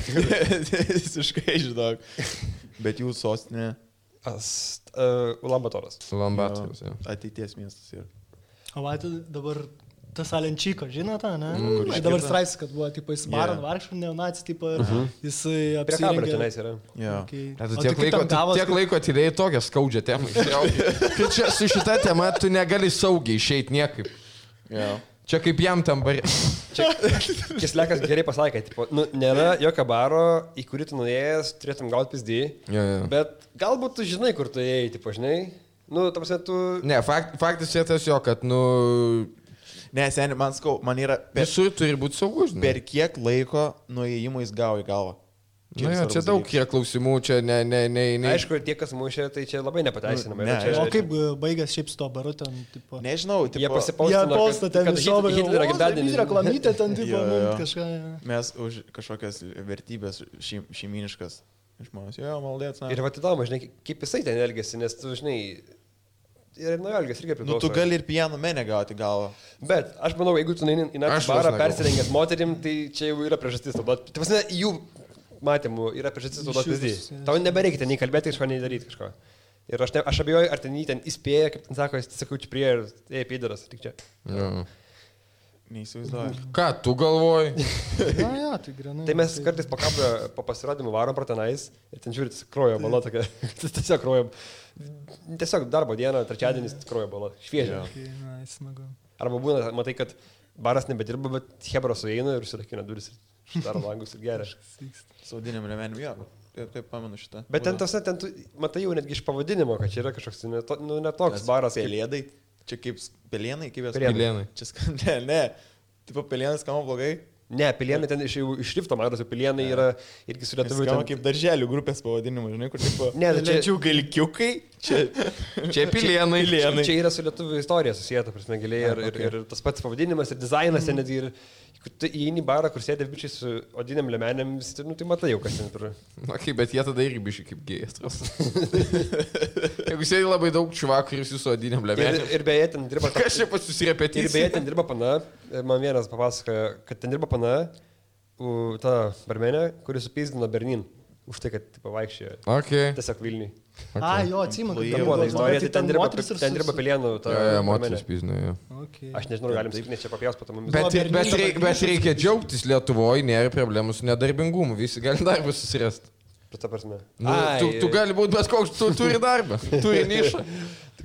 Visiškai, žinok. Bet jų sostinė. Ulambatoras. Ulambatoras, jo. Ateities miestas yra. O va, dabar tas Alenčyko, žinote, ne? iškirta? Dabar straipsnis, kad buvo, tipo, jis varo vargšų neonacijų, tipo, jisai Prie kabrio apsirengė. tenais yra. Jo. Okay. Tiek laiko atidėjai tokią skaudžią temą. Kad čia su šita tema tu negali saugiai išeiti niekaip. Jo. Čia kaip jam tam barė. Kislekas gerai pasakė, tipo, nu, nėra jokio baro, į kurį tu nuėjęs, turėtum gauti pizdį, bet galbūt tu žinai, kur tu ėjai, tipo, žinai. Nu, ta prasme, tu... Ne, faktas yra tas jo, kad, nu... Ne, seniai, man yra... Visur turi būti saugus, žinai. Per kiek laiko nuėjimų jis gavo į galvą? Čia daug yra klausimų, čia ne. Aišku, tie, kas mušė, tai čia labai nepateisinama. O kaip baigęs šiaip su to baru ten, tipo... Nežinau, jie pasipaustino, kad Hitlerio gimtadienis. Reklamytė ten, tipo, kažką... Mes už kažkokias vertybės šeiminiškas žmonės. Jo, maldėts. Ir va, įdomu, žinai, kaip jisai ten elgėsi, nes tu, žinai... Ir nuo elgės irgi priklauso. Nu, tu gali ir pieno menę gauti galvą. Bet aš manau, jeigu tu neini į naktį barą persirengęs moterim, tai čia jau yra priežastis. Tai prasme, jų matymų yra priežastis naudoti pavyzdį. Tau nebereikia ten nei kalbėti kažko, nei daryti kažko. Ir aš abejoju, ar ten jį ten įspėja, kaip ten sako, jis sakau, čia prie ir pėdaras, tik čia. Neįsivaizduoju. Ką, tu galvoji? Na, tai grinai. Tai mes kartais po kabrio, po pasirodymų varom pro tenais ir ten žiūrit, krojo bala tokia. Tiesiog krojo. Tiesiog darbo dieną, trečiadienis krojo bala. Šviežia. Arba būna, matai, kad baras nebedirba, bet hebra sueina ir užsirakina duris. Daro langus ir geria. Saudiniam lemenim, jo. Taip pamenu šitą. Bet ten tas, ten tu matai jau netgi iš pavadinimo, kad čia yra kažkoks netoks baras. Pelėdai. Čia kaip pelėnai, kaip jas Pelėnai. Čia ne. Tipo pelėnai skamba blogai. Ne, pilienai ten iš šrifto matosi, pilienai yra irgi su lietuviu. Skamba kaip darželių grupės pavadinimu, žinai, kur tipo... Ne, čia galkiukai. Čia pilienai. Čia yra su lietuviu istorija susijęta, prasme, giliai ir tas pats pavadinimas, ir dizainas, netgi ir... Tu įeini į barą, kur sėdė bičiai su odiniam lemenėm, nu, tai matai jau, kas ten turi. Okay, bet jie tada irgi bičiai kaip gėjastros. Jeigu sėdi labai daug čuvakų ir su odiniam lemenėm. Ir beje, ten dirba... Kas čia pas susirepetys? Ir beje, ten dirba pana. Man vienas papasakoja, kad ten dirba pana, ta barmenė, kuris supyzdino Bernin. Už tai, kad pavaikščiojo. Okay. Tiesiog Vilniui. Okay. Jo, atsimenu. Ten buvo ta istorija, tai ten dirba pilienų. Moteris pyzdino, jo. Okay. Aš nežinau, galim sakyti, nes čia papjaus po to mumis. Bet reikia džiaugtis Lietuvoje, nėra problemų su nedarbingumu, visi gali darbą susirasti. Ta prasme. Tu gali būti bet koks, tu turi darbą, turi nišą.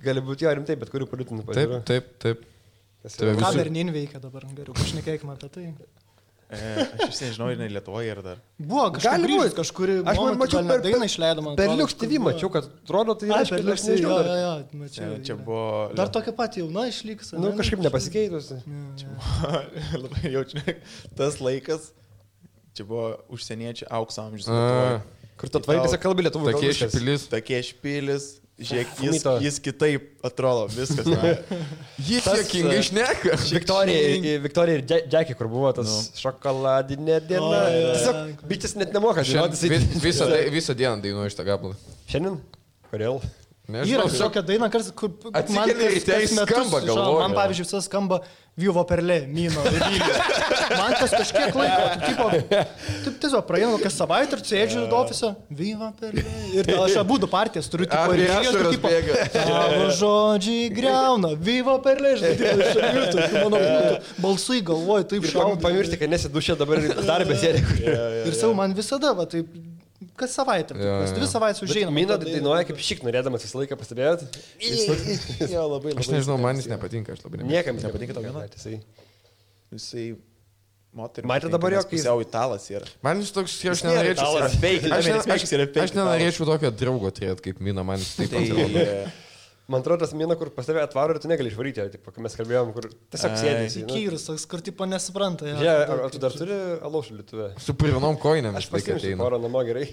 Gali būti jo rimtai, bet kurių politinių pažiūrų. Taip. Ką Bernin veikia dabar, geriau, pašnekėkime apie tai. Aš vis nežinau, ir ne Lietuvoje yra dar. Buvo kažkur, aš mačiau per dainą išleidom. Per Liux TV mačiau, kad atrodo tai yra per Liux TV. Čia buvo... Dar tokia pati jauna išliks. Nu, kažkaip nepasikeitusi. Čia buvo labai jaučiu. Tas laikas, čia buvo užsieniečių aukso amžius. Kur tu atvarai visą kalbą lietuvų. Tokie špilis. Žiūrėk, jis kitaip atrodo, viskas. Jis jokingai šneka. Viktorija ir Jackie, kur buvo tas šokoladinė diena. Tiesiog bičias net nemoka žinoti. Visą dieną dainuoju šitą gabalą. Šiandien? Kodėl? Yra tokia daina, kur atsikeli ryte skamba, galvoju. Man, pavyzdžiui, visas skamba Vivo Perlė, Mino ir Vilnių. Man tas kažkiek laiko, taip tiesiog praeina kokią savaitę ir sėdžiu ofise, Vivo Perlė. Ir aš abudu partijas turiu, tipo, tavo žodžiai greuna, Vivo Perlė, žinai, balsai galvoju, taip šau. Pamiršti, kad nesi dušė dabar darbė sėdė. Ir savo man visada, va, taip... Kas savaitę, kas 2 savaitės užeina. Mina dainuoja kaip šik, norėdamas visą laiką pastebėt. Jo, labai. Aš nežinau, man jis nepatinka, aš labai nepatinka. Niekam nepatinka tau viena. Jisai moteris. Matė dabar jo, kai pusiau italas yra. Man jis toks, aš nenorėčiau. Aš nenorėčiau tokio draugo turėti kaip Mina, man jis taip pat. Man atrodo, tas Mina, kur pas tave atvaro ir tu negali išvaryti, tipo, kai mes kalbėjom, kur tiesiog sėdėsi. Įkyrus, toks, kur tipo nesupranta. Ar tu dar turi alaušų lietuvę? Su purvinom koinėm. Aš pasiimsiu porą namo gerai.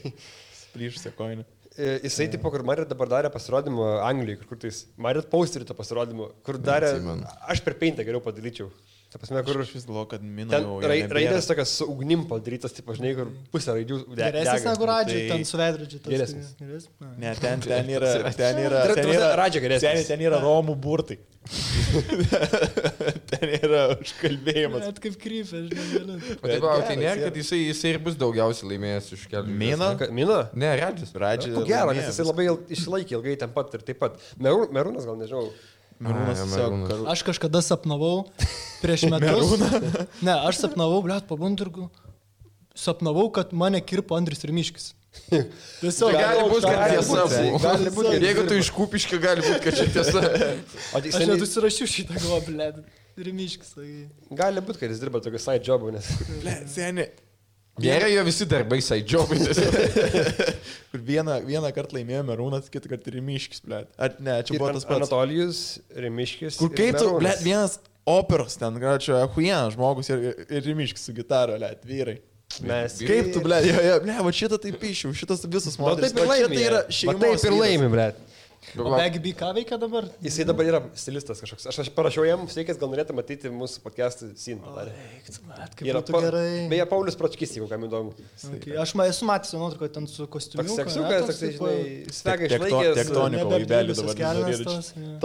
Plyšusią koinę. Jisai, tipo, kur Marit dabar darė pasirodymą Anglijoje, kur tais Marit posterį to pasirodymą, kur darė, aš per Paintą geriau padaryčiau. Ta prasme, kur Aš vis galvoju, kad mina ten jau... raidės tokias su ugnim padarytas, taip, žinai, kur pusė raidžių Geresnis negu radžiai, Tai- ten su veidrodžiu. Geresnis. Ne, ten yra... Radžia geresnis. Ten yra romų burtai. Ten yra užkalbėjimas. Net kaip krypė, žinai. O taip, o tai nėra, kad jisai ir bus daugiausiai laimėjęs iš kelių. Mina? Mina? Ne, Radžis. Radži. Ko gero, nes jisai labai išsilaikė ilgai ten pat ir taip pat. Merūnas gal nežinau. Merūnas tiesiog... Aš kažkada sapnavau prieš metus. Ne, aš sapnavau, blėt, pabundirgu. Sapnavau, kad mane kirpo Andris Rimiškis. Tiesiog Gali būti, kad tiesa buvo. Gali būt, kad Jeigu tu iš Kupiškio, gali būti, kad čia tiesa. Aš net užsirašiau šitą galvą, blėt. Rimiškis. Gali būti, kad jis dirba tokį side jobą, nes... Ble, seni. Nėra jo visi darbai saidžiobai. Kur vieną kartą laimėjo Merūnas, kitą kartą Rimiškis, ble. Ar ne, čia buvo tas pats. Anatolijus, Rimiškis. Kur kai tu, ble, vienas operos ten, gal čia huienas žmogus ir Rimiškis su gitaro, ble, vyrai. Mes... Kaip tu, ble, ble, va šitą taip pišiau, šitas visas modelis. Taip ir laimi. Tai yra šeimos. Taip ir laimi, ble. O Bagby ką veikia dabar? Jisai dabar yra stilistas kažkoks. Aš parašiau jam, sveikės, gal norėtų matyti mūsų podcast'ą scene padarė. Kaip būtų gerai. Beje, Paulius Pročkis, jeigu kam įdomu. Okay. Aš esu matęs nuotrauką ten su kostiumu. Toks seksiukas, toksai, žinai, svega išlaikęs. Tektoniko vaibelį dabar.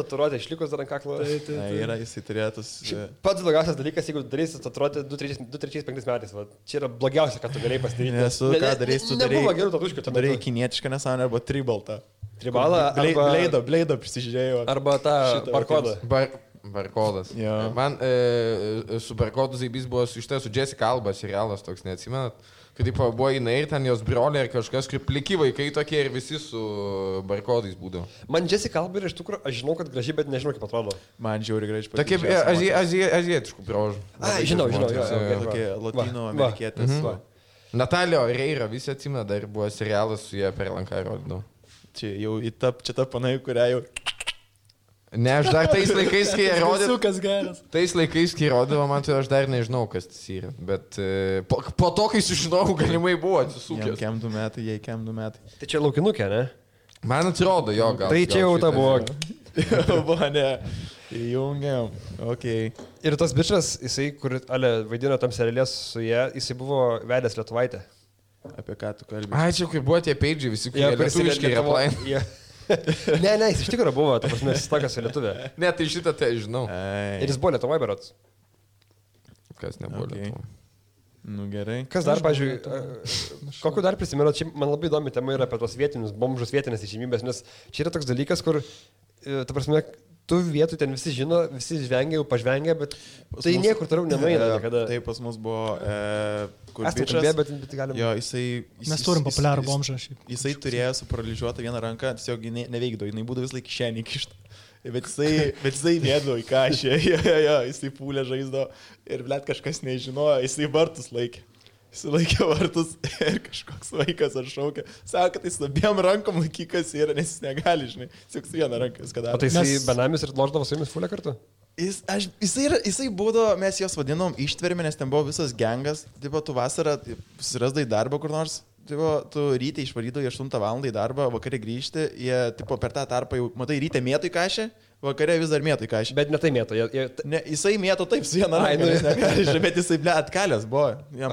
Tatuiruotė išlikus dar ant kaklo. Yra, jisai turėtus. Pats blogiausias dalykas, jeigu darysi tatuiruotę 2-3-5 metais. Va. Čia yra blogiausia, ką tu galėjai pasidaryti. Nesu, ką darysi, tu darai. Nebuvo gerų tatuiškių. Tu darai kinietišką nesąmonę arba tribaltą. Tribalą arba... Bleido prisižiūrėjau. Arba tą barkodą. Barkodas. Jo. Man su barkodu zaibys buvo su Jessica Alba serialas, toks neatsimenat. Kad taip buvo jinai ir ten jos broliai ir kažkas, kaip pliki vaikai tokie ir visi su barkodais būdavo. Man Jessica Alba iš tikrųjų, aš žinau, kad gražiai, bet nežinau, kaip atrodo. Man žiauri gražiai Tokie azijietiškų braužų. Žinau. Tokie latino amerikietės. Natalio Reira, visi atsimena, dar buvo serialas su jie per lanką rodydavo. Čia jau čia ta panai, kurią jau... Ne, aš dar tais laikais, kai jie rodė... Tais laikais, kai rodavo, man tai aš dar nežinau, kas tas yra. Bet po to, kai sužinojau, galimai buvo atsisukęs. Kem 2 metai, jai kem 2 metai. Tai čia laukinukė, ne? Man atrodo, jo, gal. Tai čia jau ta buvo. Buvo, ne. Įjungiam. Ok. Ir tas bičas, jisai, kur vaidino tam serialės su jie, jisai buvo vedęs Lietuvaitę. Apie ką tu kalbėjai? Ai, čia kur buvo tie peidžiai visi, kurie lietuviškai yra plain. Ne, jis iš tikrųjų buvo, ta prasme, jis tokas su lietuvė. Ne, tai šitą tai žinau. Ir jis buvo Lietuvoje berods. Kas nebuvo Lietuvoje. Nu gerai. Kas dar, pažiūrėjau, kokiu dar prisimenu, čia man labai įdomi tema yra apie tos vietinius bomžus, vietinės išimybės, nes čia yra toks dalykas, kur, ta prasme, tų vietų ten visi žino, visi žvengia, jau pažvengia, bet tai niekur toliau nenueina niekada. Tai pas mus buvo, kur bičas, bet galim... Jo, jisai... Mes turim populiarų bomžą šiaip. Jisai turėjo suparalyžiuotą vieną ranką, tiesiog neveikdavo, jinai būdavo vis laik kišenį kištą. Bet jisai mėdavo į kažę, jisai pūlė žaizdo ir blėt kažkas nežinojo, jisai vartus laikė. Jisai laikė vartus ir kažkoks vaikas ar šaukė. Sako, kad jis abiem rankom laikykas yra, nes jis negali, žinai. Tik su viena ranka viską daro. O tai jisai benamis ir loždavo su jumis fulę kartu? Jisai būdavo, mes jos vadinom ištvermė, nes ten buvo visas gengas. Tipo, tu vasarą susirasdai darbą kur nors. Tipo, tu ryte išvarydavai 8 val. Į darbą, vakarė grįžti, jie tipo, per tą tarpą jau, matai, ryte mėtų į kažę, vakarė vis dar mėtų į kažę. Bet ne tai mėtų. Ne, jisai mėtų taip su viena ranka, bet jisai, ble, atkalęs buvo. Jam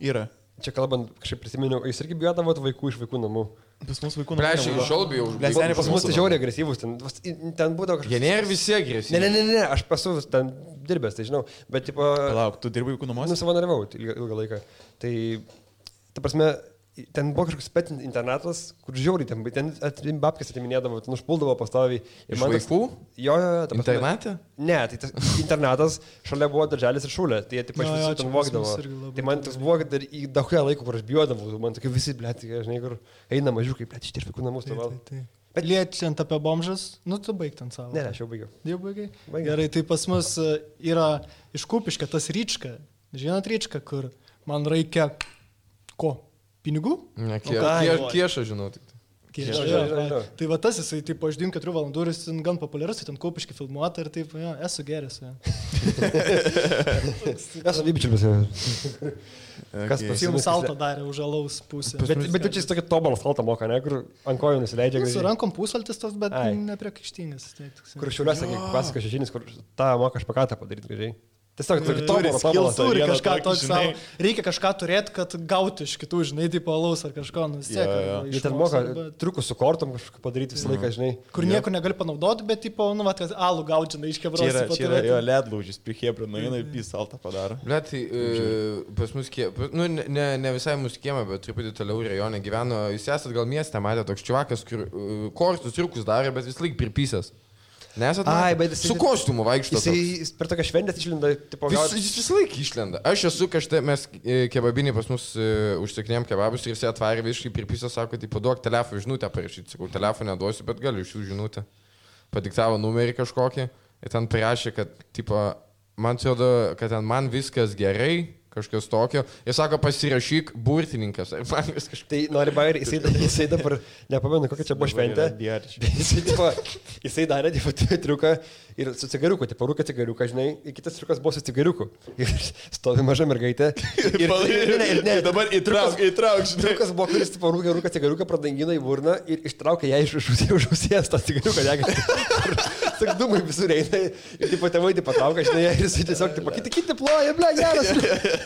yra. Čia kalbant, kažkaip prisiminiau, jūs irgi bijodavot vaikų iš vaikų namų. Pas mus vaikų namų. Prieš iš šiol bijau. Pas mus tai žiauriai agresyvus, ten būdavo kažkas. Jie nėra visi agresyvūs. Ne, aš esu ten dirbęs, tai žinau, bet tipo... Palauk, tu dirbai vaikų namuose? Savanoriavau ilgą laiką. Tai, ta prasme, ten buvo kažkoks pet internatas, kur žiauriai ten babkės atiminėdavo, ten užpuldavo pastoviai. Iš vaikų? Jo. Internate? Ne, tai tas internatas šalia buvo darželis ir šūlė, tai jie taip aš visi ten vogdavo. Tai man tas buvo, kad dar į daugia laiko, kur aš bijodavau, man tokie visi, blėt, žinai, kur eina mažiukai, blėt, iš vaikų namus to val. Bet liečiant apie bomžas, nu tu baig ten savo. Ne, aš jau baigiau. Jau baigai? Gerai, tai pas mus yra iš Kupiškio tas Ryčka. Žinot Ryčka, kur man reikia ko? Pinigų? Ne, kiešą žinau tik. skėčio. Tai va tas jisai, tipo, aš 4 valandų ir jis gan populiarus, tai ten Kaupiškai filmuota ir taip, jo, esu geras. Esu vybičiulis. Kas pasiūlė salto darė už alaus pusę. Bet čia jis tokį tobalą saltą moka, ne, kur ant kojų nusileidžia. Su rankom pusvaltis tos, bet nepriekaištingas. Kur Šiauliuose pasaka šešinis, kur tą moka špakatą padaryti gražiai. Tiesiog turi kažką tokio, reikia kažką turėti, kad gauti iš kitų, žinai, tipo alaus ar kažko, nusiek. Jie ten moka triukus su kortom kažką padaryti visą laiką, žinai. Kur nieko negali panaudoti, bet, tipo, nu, vat, alų gauti, žinai, iš kebros. Čia yra jo ledlaužis, prie Hebro nueina ir saltą padaro. Bet pas mus nu, ne visai mūsų kiemą, bet truputį toliau rajone gyveno, jūs esat gal mieste, matė toks čiuvakas, kur kortus triukus darė, bet vis laik pripysęs. Nesat su kostiumu vaikšto. Jis per tokią šventę išlenda, tipo, jis vis laik išlenda. Aš esu kažtai, mes kebabinį pas mus užsikinėjom kebabus ir jis atvarė visiškai pripysą, sako, tipo, duok telefoną žinutę parašyti. Sakau, telefoną neduosiu, bet galiu iš jų žinutę. Padiktavo numerį kažkokį ir ten parašė, kad, tipo, man atrodo, kad ten man viskas gerai. Kažkas tokio. Jis sako, pasirašyk burtininkas. Tai nori bairį, jisai dabar, nepamenu, kokia čia buvo šventė. Jisai darė triuką ir su cigariuku, tipo rūkė cigariuką, žinai, ir kitas triukas buvo su cigariuku. Ir stovi maža mergaitė. Ir dabar įtrauk, žinai. Triukas buvo, kuris tipo rūkė cigariuką, pradangino į burną ir ištraukė ją iš ausės tą cigariuką. Tik dūmai visur eina ir tipo tėvai patraukia, žinai, ir jisai tiesiog, tipo, kiti ploja, ble, geras.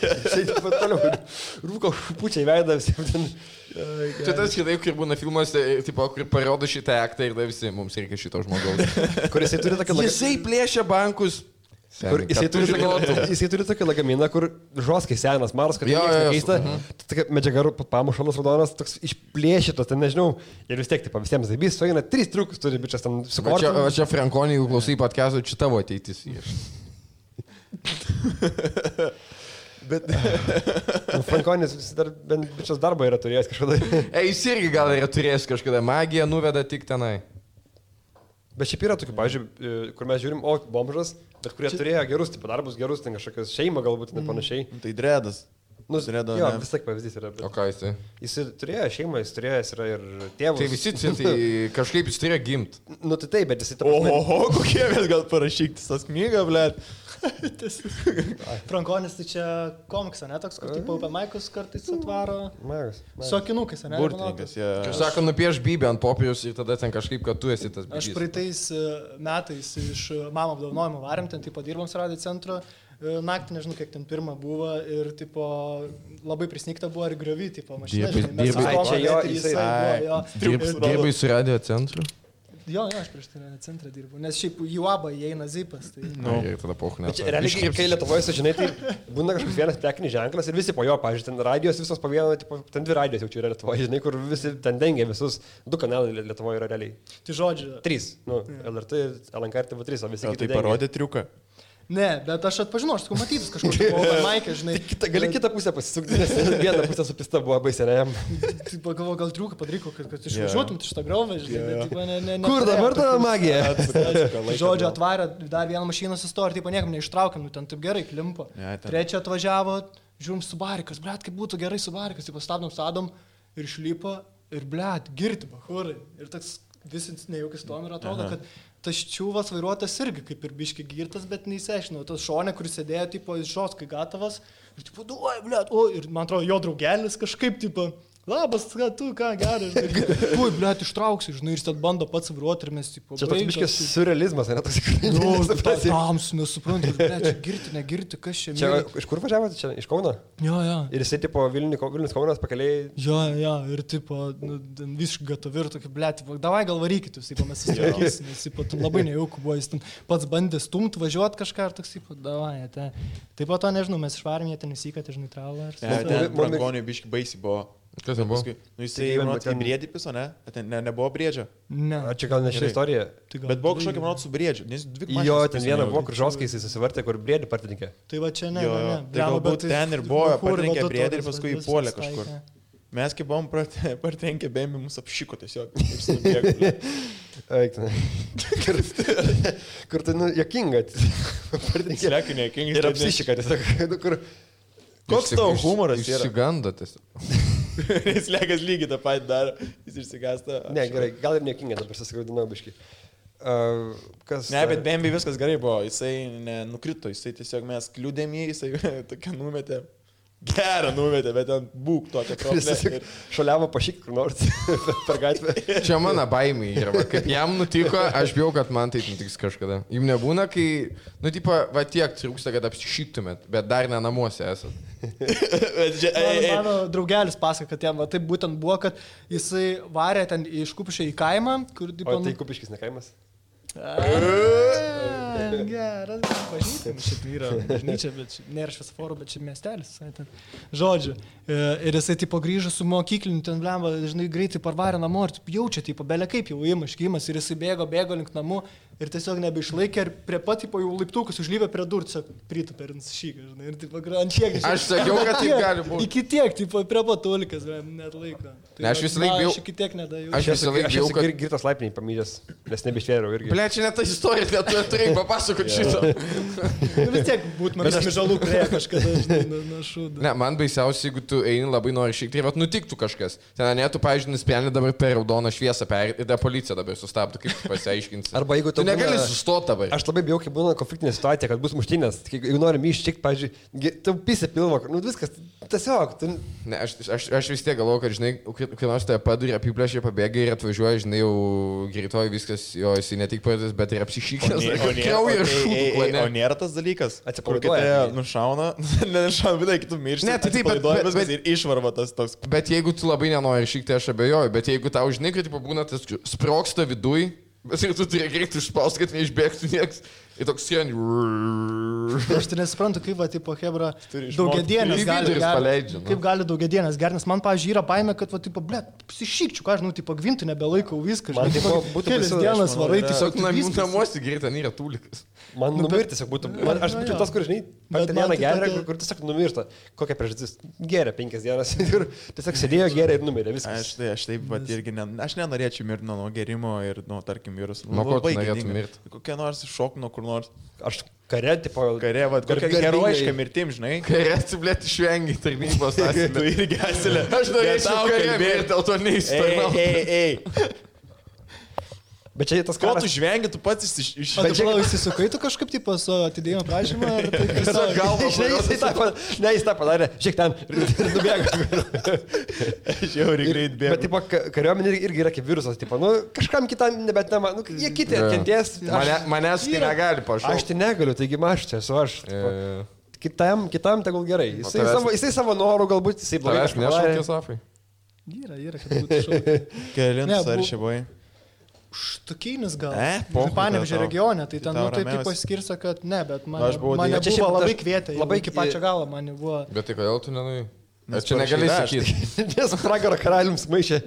Jisai tipo toliau rūko pučiai veidą visiems ten. Čia tas kitaip, kur būna filmuose, tipo, kur parodo šitą aktą ir da visi, mums reikia šito žmogaus. Kur jisai turi tokį Jisai plėšia bankus. Jisai turi tokį lagaminą, kur žoskai senas, maras, kad keista. Tokia medžiaga pamušalas raudonas, toks išplėšytas, ten nežinau. Ir vis tiek, tipo, visiems zaibys, sueina 3 triukus, turi bičias ten su kortom. O čia Frankonį, jeigu klausai podcast'o, čia tavo ateitis. Bet Frankonis dar bent bičias darbą yra turėjęs kažkada. Jis irgi gal yra turėjęs kažkada. Magija nuveda tik tenai. Bet šiaip yra tokių, pavyzdžiui, kur mes žiūrim, bomžas, bet kurie turėjo gerus, tipo, darbus gerus, ten kažkokios šeimą galbūt, net panašiai. Tai dredas. Dredo, jo, vis tiek pavyzdys yra. Bet... O ką jisai? Jis turėjo šeimą, jis yra ir tėvus. Tai visi, tai kažkaip jis turėjo gimt. Nu tai taip, bet jisai... Oho, kokie mes gal parašykti tas knygą, blėt. Frankonis tai čia komiksą, ne toks, kur tipo Open Mic'us kartais atvaro. Magas. Su akinukais, ne? Burtininkas, jie. Aš sako, nupieš bybę ant popieriaus ir tada ten kažkaip, kad tu esi tas bybys. Aš praeitais metais iš mamo apdovanojimo varėm, ten tipo dirbom su radio centru. Naktį, nežinau, kiek ten pirmą buvo ir, tipo, labai prisnykta buvo ir griovy, tipo, mašina. Dirbai su radio centru? Jo, aš prieš tai radio centrą dirbu, nes šiaip į UABą įeina zipas. Tai... Ir tada pochne. Realiai, kai Lietuvoje, sužinai, tai būna kažkoks vienas prekinis ženklas ir visi po jo, pavyzdžiui, ten radijos visos po vieną, tipo, ten 2 radijos jau čia yra Lietuvoje, žinai, kur visi ten dengia visus, 2 kanalai Lietuvoje yra realiai. Tai žodžiu. 3, LRT, LNK ir TV3, o visi kiti. Tai parodė triuką. Ne, bet aš atpažinau, aš sakau, matytus kažkokį Open Mic'ą, žinai. Gali kitą pusę pasisukti, nes vieną pusę su pista buvo baisiai, ne? Tai pagalvoju, gal triuką padaryko, kad išvažiuotum iš tą griovą, žinai, bet ne. Kur dabar ta magija? Žodžiu, atvarė dar vieną mašiną sustojo ir taip niekam neištraukėm, nu ten taip gerai klimpo. Trečia atvažiavo, žiūrim Subarikas, blėt, kaip būtų gerai Subarikas, tai pastabdom sadom ir išlipo ir blėt, girti, bahurai. Ir toks visi nejaukis tom ir atrodo, kad tas čiūvas vairuotas irgi kaip ir biški girtas, bet neįsiaiškinau. Tas šonė, kuris sėdėjo, tipo, iš žoskai gatavas, ir tipo, duoj, blėt, ir man atrodo, jo draugelis kažkaip, tipo, labas, tu ką, gerai, žinai, ui, blėt, ištrauksiu, žinai, ir jis ten bando pats vairuoti ir mes, tipo, čia toks biškis surrealizmas, ne toks tikrai. Nu, tamsu, nesuprantu, blėt, čia girti, negirti, kas čia. Čia iš kur važiavote, čia iš Kauno? Jo. Ir jisai, tipo, Vilnius Kaunas pakeliai. Jo, ir, tipo, visiškai gatovi ir tokį, blėt, tipo, davai gal varykit, jūs, tipo, mes susitvarkysim, nes, tipo, labai nejauku buvo, jis ten pats bandė stumti, važiuoti kažką ir toks, tipo, davai, taip pat to nežinau, mes išvarėm, jie ten įsikatė, žinai, tralą. Ten Frankoniui biški baisiai buvo. Kas ten buvo? Nu jisai, manot, į briedį piso, ne? Ten nebuvo briedžio. Ne. Čia gal ne ši istorija. Bet buvo kažkokia, manot, su briedžiu. Jo, ten viena buvo, kur žoskai jis susivartė, kur briedį partininkė. Tai va čia ne. Tai galbūt ten ir buvo, partininkė briedį ir paskui įpuolė kažkur. Mes kaip buvom partininkė bėmi, mus apšiko tiesiog. Kur tai, nu, jokinga. Partininkė ir apsišika tiesiog. Koks tavo humoras yra? Išsigando tiesiog. Jis lėkas lygiai tą patį daro, jis išsigąsta. Ne, gerai, gal ir niekinga, dabar susigaudinau biškai. Ne, bet Bambi viskas gerai buvo, jisai nenukrito, jisai tiesiog mes kliūdėm jį, jisai tokia numetė. Gerą numetė, bet ten būk tokia problema. Šaliavo pašyk kur nors per gatvę. Čia mano baimė yra. Kaip jam nutiko, aš bijau, kad man taip nutiks kažkada. Jums nebūna, kai, va tiek trūksta, kad apsišyktumėt, bet dar ne namuose esat. Mano draugelis pasako, kad jam taip būtent buvo, kad jisai varė ten iš Kupiškio į kaimą. O tai Kupiškis ne kaimas? Geras, pažįstam, šiaip yra bažnyčia, bet nėra šviesoforo, bet čia miestelis. Žodžiu, ir jisai tipo grįžo su mokykliniu, ten blemba, žinai, greitai parvarė namo ir jaučia, tipo, belia kaip jau įmaškymas ir jisai bėgo link namų ir tiesiog nebeišlaikė ir prie pat, tipo, jau laiptukus užlyvė prie durų, tiesiog pritupė ir nusišyka, žinai, ir tipo, ant kiek. Aš sakiau, kad taip gali būti. Iki tiek, tipo, prie pat tulikas, net laiko. Ne, aš visą laiką bijau. Aš iki tiek nedėjau. Aš visą laiką bijau, kad girtas laipniai pamydęs, nes nebeištvėriau irgi. Ble, čia ne ta istorija, net tu turėjai papasakoti šitą. Vis tiek būtų man žalų prie kažkada, žinai, nuo šūdo. Ne, man baisiausia, jeigu tu eini labai nori šiek tiek, bet nutiktų kažkas. Ten ne, tu, pavyzdžiui, nusprendė dabar per raudoną šviesą perėti ir ta policija dabar sustabdo, kaip tu pasiaiškinsi. Arba jeigu tu negali sustoti dabar. Aš labai bijau, kai būna konfliktinė situacija, kad bus muštynės. Jeigu nori ištikti, pavyzdžiui, tu pisė pilvo, nu viskas, tiesiog. Tu... Ne, aš vis tiek galvoju, kad, žinai, kai nors tave paduri, apiplėšė, pabėga ir atvažiuoja, žinai, jau greitoji viskas, jo, jisai ne tik pradės, bet ir apsišykęs. O nėra tas dalykas, kur kitą nušauna, nenušauna, bet kitų miršti. Ne, tai taip, bet ir išvarva tas toks. Bet jeigu tu labai nenori išvykti, aš abejoju, bet jeigu tau, žinai, kad būna tas sproksta viduj, bet ir tu turi greitai išspausti, kad neišbėgtų nieks. Ir toks siendi. Aš tai nesuprantu, kaip va, tipo, hebra, daugiadienės gali. Kaip gali daugiadienės gerti, nes man, pavyzdžiui, yra baimė, kad, va, tipo, ble, psišykčiu, ką aš, nu, tipo, gvintų nebelaikau viską. Man tipo, būtų kelias dienas varai, tiesiog namuose gerai, ten yra tūlikas. Man numirti tiesiog būtų. Aš būčiau tas, kur, žinai, vieną gerą, kur tiesiog numirta. Kokia priežastis? Geria 5 dienas ir tiesiog sėdėjo geria ir numirė viskas. Aš taip pat irgi, aš nenorėčiau mirti nuo gerimo ir, nu, tarkim, viruso. Nuo ko tu norėtum mirti? Kokia nors šok nuo kur nors. Aš kare, tipo, va, kokia herojiška mirtim, žinai. Kare atsiblėti išvengi tarnybos asilę. Tu irgi asilę. Aš norėčiau kare mirti, dėl to neįstojau. Bet čia tas karas. Ko tu žvengi, tu pats iš... Bet čia įsisukai tu kažkaip, tipo, su atidėjimo prašymą? Tiesiog galvo. Ne, jis tą padarė. Šiek ten nubėga. Žiauriai greit bėga. Bet, tipo, kariuomenė irgi yra kaip virusas. Tipo, nu, kažkam kitam nebet nema. Nu, jie kiti kentės. Manęs tai negali pašaukti. Aš tai negaliu, taigi aš čia esu aš. Kitam tegul gerai. Jisai savo norų galbūt, jisai blogai. Aš nešaukė Safai. Yra, kad būtų šaukė. Kelintas ar šia buvai? Štukinis gal. Panevėžio regione, tai ten, nu, taip paskirsa, kad ne, bet mane buvo labai kvietę. Labai iki pačio galo mane buvo. Bet tai kodėl tu nenui? Čia negali sakyti. Nes pragaro karaliums maišė.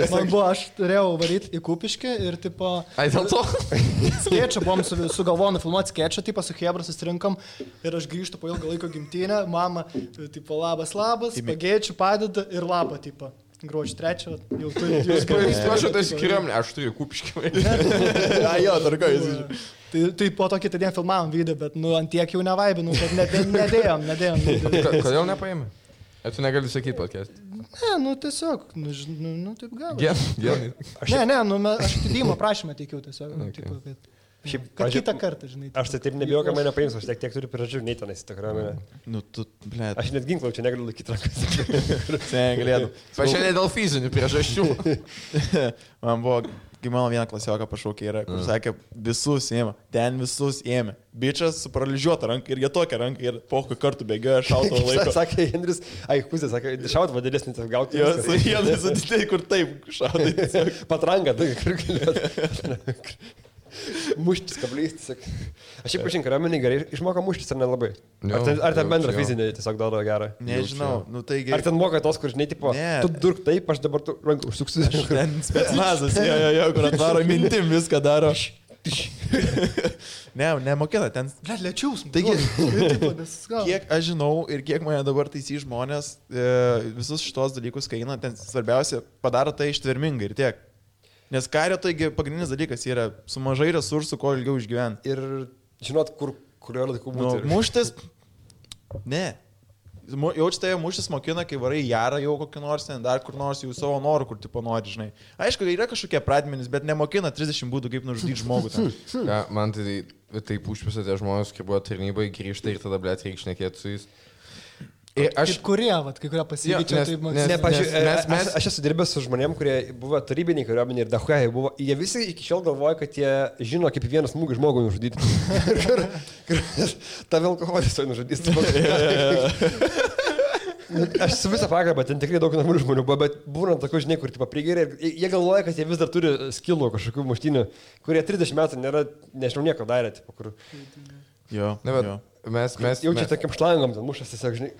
Man buvo, aš turėjau varyti į Kupiškį ir, tipo... Ai, dėl to? Skečą buvom sugalvoję nufilmuoti skečą, tipo, su Hebra susirinkom ir aš grįžtu po ilgą laiko gimtinę, mama, tipo, labas, pagėčių padeda ir labą, tipo. Gruodžio 3, jau turiu jūs galvojate. Aš tai skiriuomenė, aš turiu Kupiškį. Jo, dar ką jūs. Tai po to kitą dieną filmavom video, bet, nu, ant tiek jau nevaibinau, kad nedėjom. Kodėl nepaėmė? Tu negali sakyti podcast. Ne, nu, tiesiog, nu, taip gal. Gerai. Ne, nu, aš atidėjimo prašymą teikiau tiesiog. Tipo, kad kitą kartą, žinai. Aš tai taip nebijau, kad mane paims, aš tiek turiu priežasčių, nei tenais į tą kariuomenę. Nu, tu, ble. Aš net ginklą čia negaliu laikyti rankas. Negalėtų. Pašiandien dėl fizinių priežasčių. Man buvo, kai mano vieną klasioką pašaukė yra, kur sakė, visus ėmė, ten visus ėmė. Bičias su paralyžiuota ranka ir jie tokia ranka ir pokai kartų bėgioja šauto laiko. Sakė Henris, Kuzė, sakė, šaut vadėlesnį tas gauti. Jo, vienas atitėjai, kur taip šautai. Patranga, tai kur galėtų. Muštis kablys, tiesiog. Aš šiaip pažink, kariuomenį gerai išmoko muštis ar nelabai? Ar ten bendra fizinė tiesiog daro gerą? Nežinau, nu tai gerai. Ar ten moka tos, kur žinai, tipo, tu durk taip, aš dabar tu ranką užsuksiu. Ten specnazas, jo, kur atvaro mintim, viską daro. Nemokina, ten... Lėčiaus. Taigi, kiek aš žinau ir kiek mane dabar taisy žmonės, visus šitos dalykus, kai eina, ten svarbiausia, padaro tai ištvermingai ir tiek. Nes kario taigi pagrindinis dalykas yra su mažai resursų, kuo ilgiau išgyventi. Ir žinot, kurio laiku būti. Muštis? Ne. Jaučiate, mūšis mokina, kai varai jarą jau kokį nors, ten dar kur nors jau savo norų, kur tipo nori, žinai. Aišku, yra kažkokie pradmenys, bet nemokina 30 būdų, kaip nužudyti žmogų. Ja, man taip užpisa tie žmonės, kai buvo tarnybai, grįžta ir tada, blėt, reikia šnekėti su jais. Kai kurie pasikeičia, aš esu dirbęs su žmonėm, kurie buvo tarybiniai kariuomeniai ir dahuai buvo, jie visi iki šiol galvoja, kad jie žino, kaip vienas smūgį žmogų nužudyti. Ta alkoholis to nužudys. Aš su visą pagarbą, ten tikrai daug normalių žmonių buvo, bet būna tokių, žinai, kur tipo prigeria ir jie galvoja, kad jie vis dar turi skilų kažkokių muštynių, kurie 30 metų nėra, nežinau, nieko darė, tipo, kur... Jo, jo. Mes jaučiai tokiam šlangom, ten mušas tiesiog, žinai.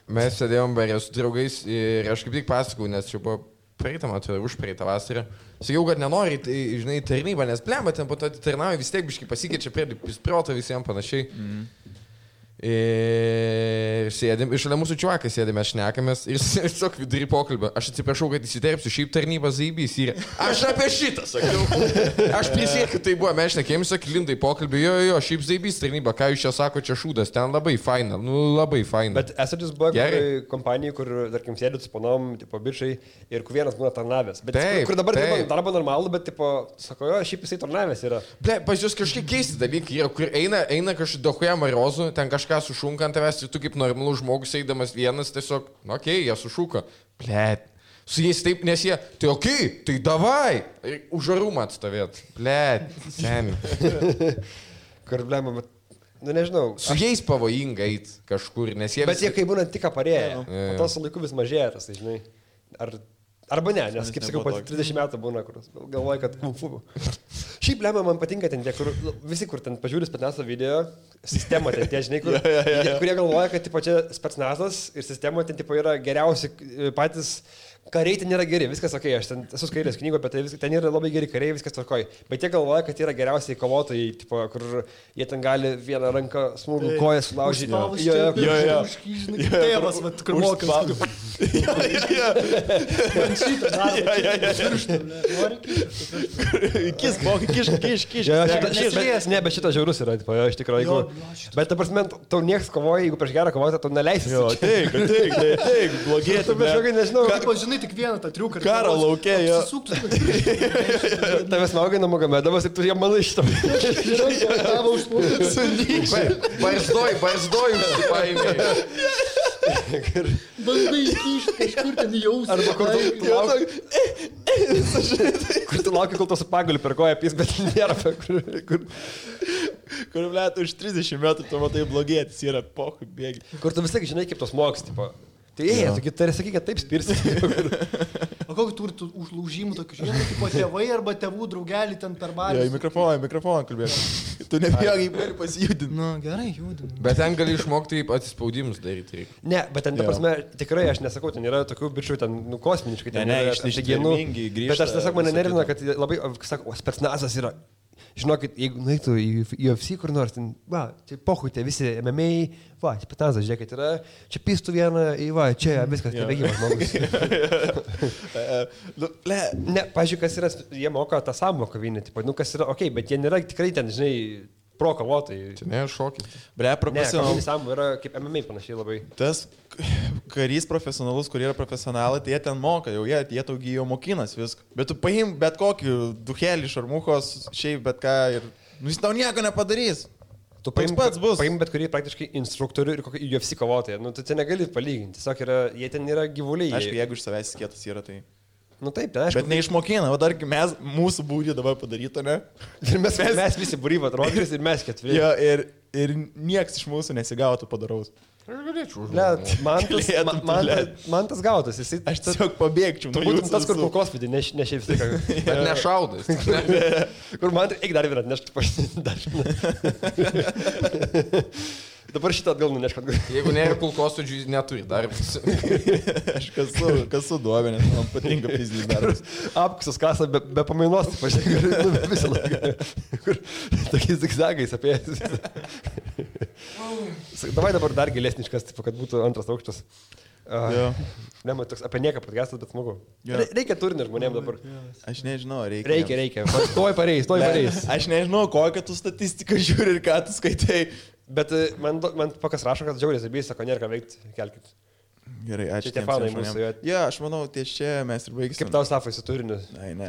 Mes sėdėjom barė su draugais ir aš kaip tik pasakau, nes čia buvo praeitą matą, užpraeitą vasarą. Sakiau, kad nenori, tai, žinai, tarnybą, nes blemba, ten po to atitarnauja, vis tiek biškai pasikeičia prie protą visiems panašiai. Ir sėdėm, iš šalia mūsų čiuvakai sėdėme, šnekamės ir tiesiog vidury pokalbio. Aš atsiprašau, kad įsiterpsiu, šiaip tarnybas zaibys ir aš apie šitą sakiau. Aš prisiekiu, tai buvo, mes šnekėjom, sakai, lindai pokalbį, jo, šiaip zaibys tarnyba, ką jūs čia sako, čia šūdas, ten labai faina, labai faina. Bet esate jūs buvo kompanijai, kur, tarkim, sėdėt su panom, tipo, bičiai ir kur vienas būna tarnavęs. Bet taip, kur dabar darbo normalu, bet, tipo, sako, jo, šiaip jisai tarnavęs yra. Ble, pas jūs kažkiek keisti dalykai yra, kur eina kažkaip dahuja marozų, ten kažką sušunka ant tavęs ir tu kaip normalus žmogus eidamas vienas tiesiog, okei, jie sušuka. Blet. Su jais taip, nes jie, tai okei, tai davai. Už arumą atstovėt. Blet, seniai. Kur blema, bet, nu nežinau. Su jais pavojinga eit kažkur, nes jie... Bet jie kai būna tik parėję, o to su laiku vis mažėja tas, tai žinai. Arba ne, nes kaip sakau, po 30 metų būna, kur galvoja, kad kung fu. Šiaip lemia, man patinka ten tie, kur visi, kur ten pažiūri spetsnazo video, sistema ten tie, žinai, kurie galvoja, kad tipo, čia spetsnazas ir sistema ten tipo, yra geriausi patys. Kariai ten yra geri, viskas ok, aš ten esu skaitęs knygų, bet ten yra labai geri kariai, viskas tvarkoj. Bet jie galvoja, kad yra geriausiai kovotojai, tipo, kur jie ten gali vieną ranką smūgų koją sulaužyti. Jo. Tėvas, kur mokas. Man šitą Kiš. Ne, bet šitas žiaurus yra, tipo, iš tikrųjų. Bet ta prasme, tau nieks kovoja, jeigu prieš gerą kovotoją, tau neleisi. Jo, teik, blogėti. Žinai, tik vieną tą triuką. Karo laukė, jo. Tavęs maugai Namagomedovas ir tu jam manai šitą. Barzdoj, užsipaėmė. Bandai įkišti kažkur ten jausmą. Arba kur tu lauki, kol to su pagaliu per koją pys, bet nėra. Kur, blėt, už 30 metų tu matai blogėtis yra, pohui, bėgi. Kur tu visai žinai, kaip tos moks, tipo. Tai tu tari sakyti, kad taip spirsi. O kokį turi užlaužimų tokių, žinai, kaip tėvai arba tėvų draugelį ten per barį? Jo, į mikrofoną kalbėk. Tu nebijai, gali pasijudinti. Nu, gerai, judinu. Bet ten gali išmokti atsispaudimus daryti. Ne, bet ten, ta prasme, tikrai aš nesakau, ten yra tokių bičių, ten, nu, kosminiškai. Ne, išsigenų. Bet aš tiesiog mane nervina, kad labai, sakau, spetsnazas yra. Žinokit, jeigu nueitų į UFC kur nors, ten, va, čia pohui, tie visi MMA, va, čia spetsnazas, žiūrėkit, yra, čia pistų vieną, va, čia viskas, nebėgimas žmogus. Ne, pažiūrėk, kas yra, jie moka tą samą kovinį, tipo, nu, kas yra, okei, bet jie nėra tikrai ten, žinai, pro kovotojai. Čia ne šokis. Ble, profesionalus. Ne, samų yra kaip MMA panašiai labai. Tas karys profesionalus, kurie yra profesionalai, tai jie ten moka, jau jie taugi jau mokinas viską. Bet tu paim bet kokį duhelį, šarmuchos, šiaip bet ką ir, nu, jis tau nieko nepadarys. Tu paim bet kurį praktiškai instruktorių ir kokį UFC kovotoją. Nu, tu čia negali palyginti. Tiesiog yra, jie ten yra gyvuliai. Aišku, jeigu iš savęs skėtas yra, tai... Nu taip, tai aišku. Bet neišmokina, o dar mes, mūsų būrį dabar padaryto, ne? Ir mes visi būryva rodris ir mes keturi. Jo, ir nieks iš mūsų nesigautų padaraus. Aš galėčiau užduoti. Man tas gautas. Aš tiesiog pabėgčiau. Tu būtum tas, kur kulkosvidį, ne šiaip viską. Bet nešaudas. Kur man, eik dar vieną atnešti pašinti. Dabar šitą atgal nunešk atgal. Jeigu nėra kulkosvaidžių, jis neturi darbas. Aš kasu duobė, nes man patinka fizinis darbas. Apkusas kasa be pamainos, pažiūrėk, visą laiką. Kur tokiais zigzagais apie jas. Davai dabar dar gilesniškas, kad būtų antras aukštas. Ne, man toks apie nieką podcastas, bet smagu. Reikia turinio žmonėms dabar. Aš nežinau, reikia. Reikia. Stoj pareis. Aš nežinau, kokią tu statistiką žiūri ir ką tu skaitai. Bet man pakas rašo, kad džiaugiasi, bijai, sako, nėra ką veikti, kelkit. Gerai, ačiū. Tie fanai mūsų. Ja, aš manau, ties čia mes ir baigsim. Kaip tau Safai su turiniu? Ai, ne.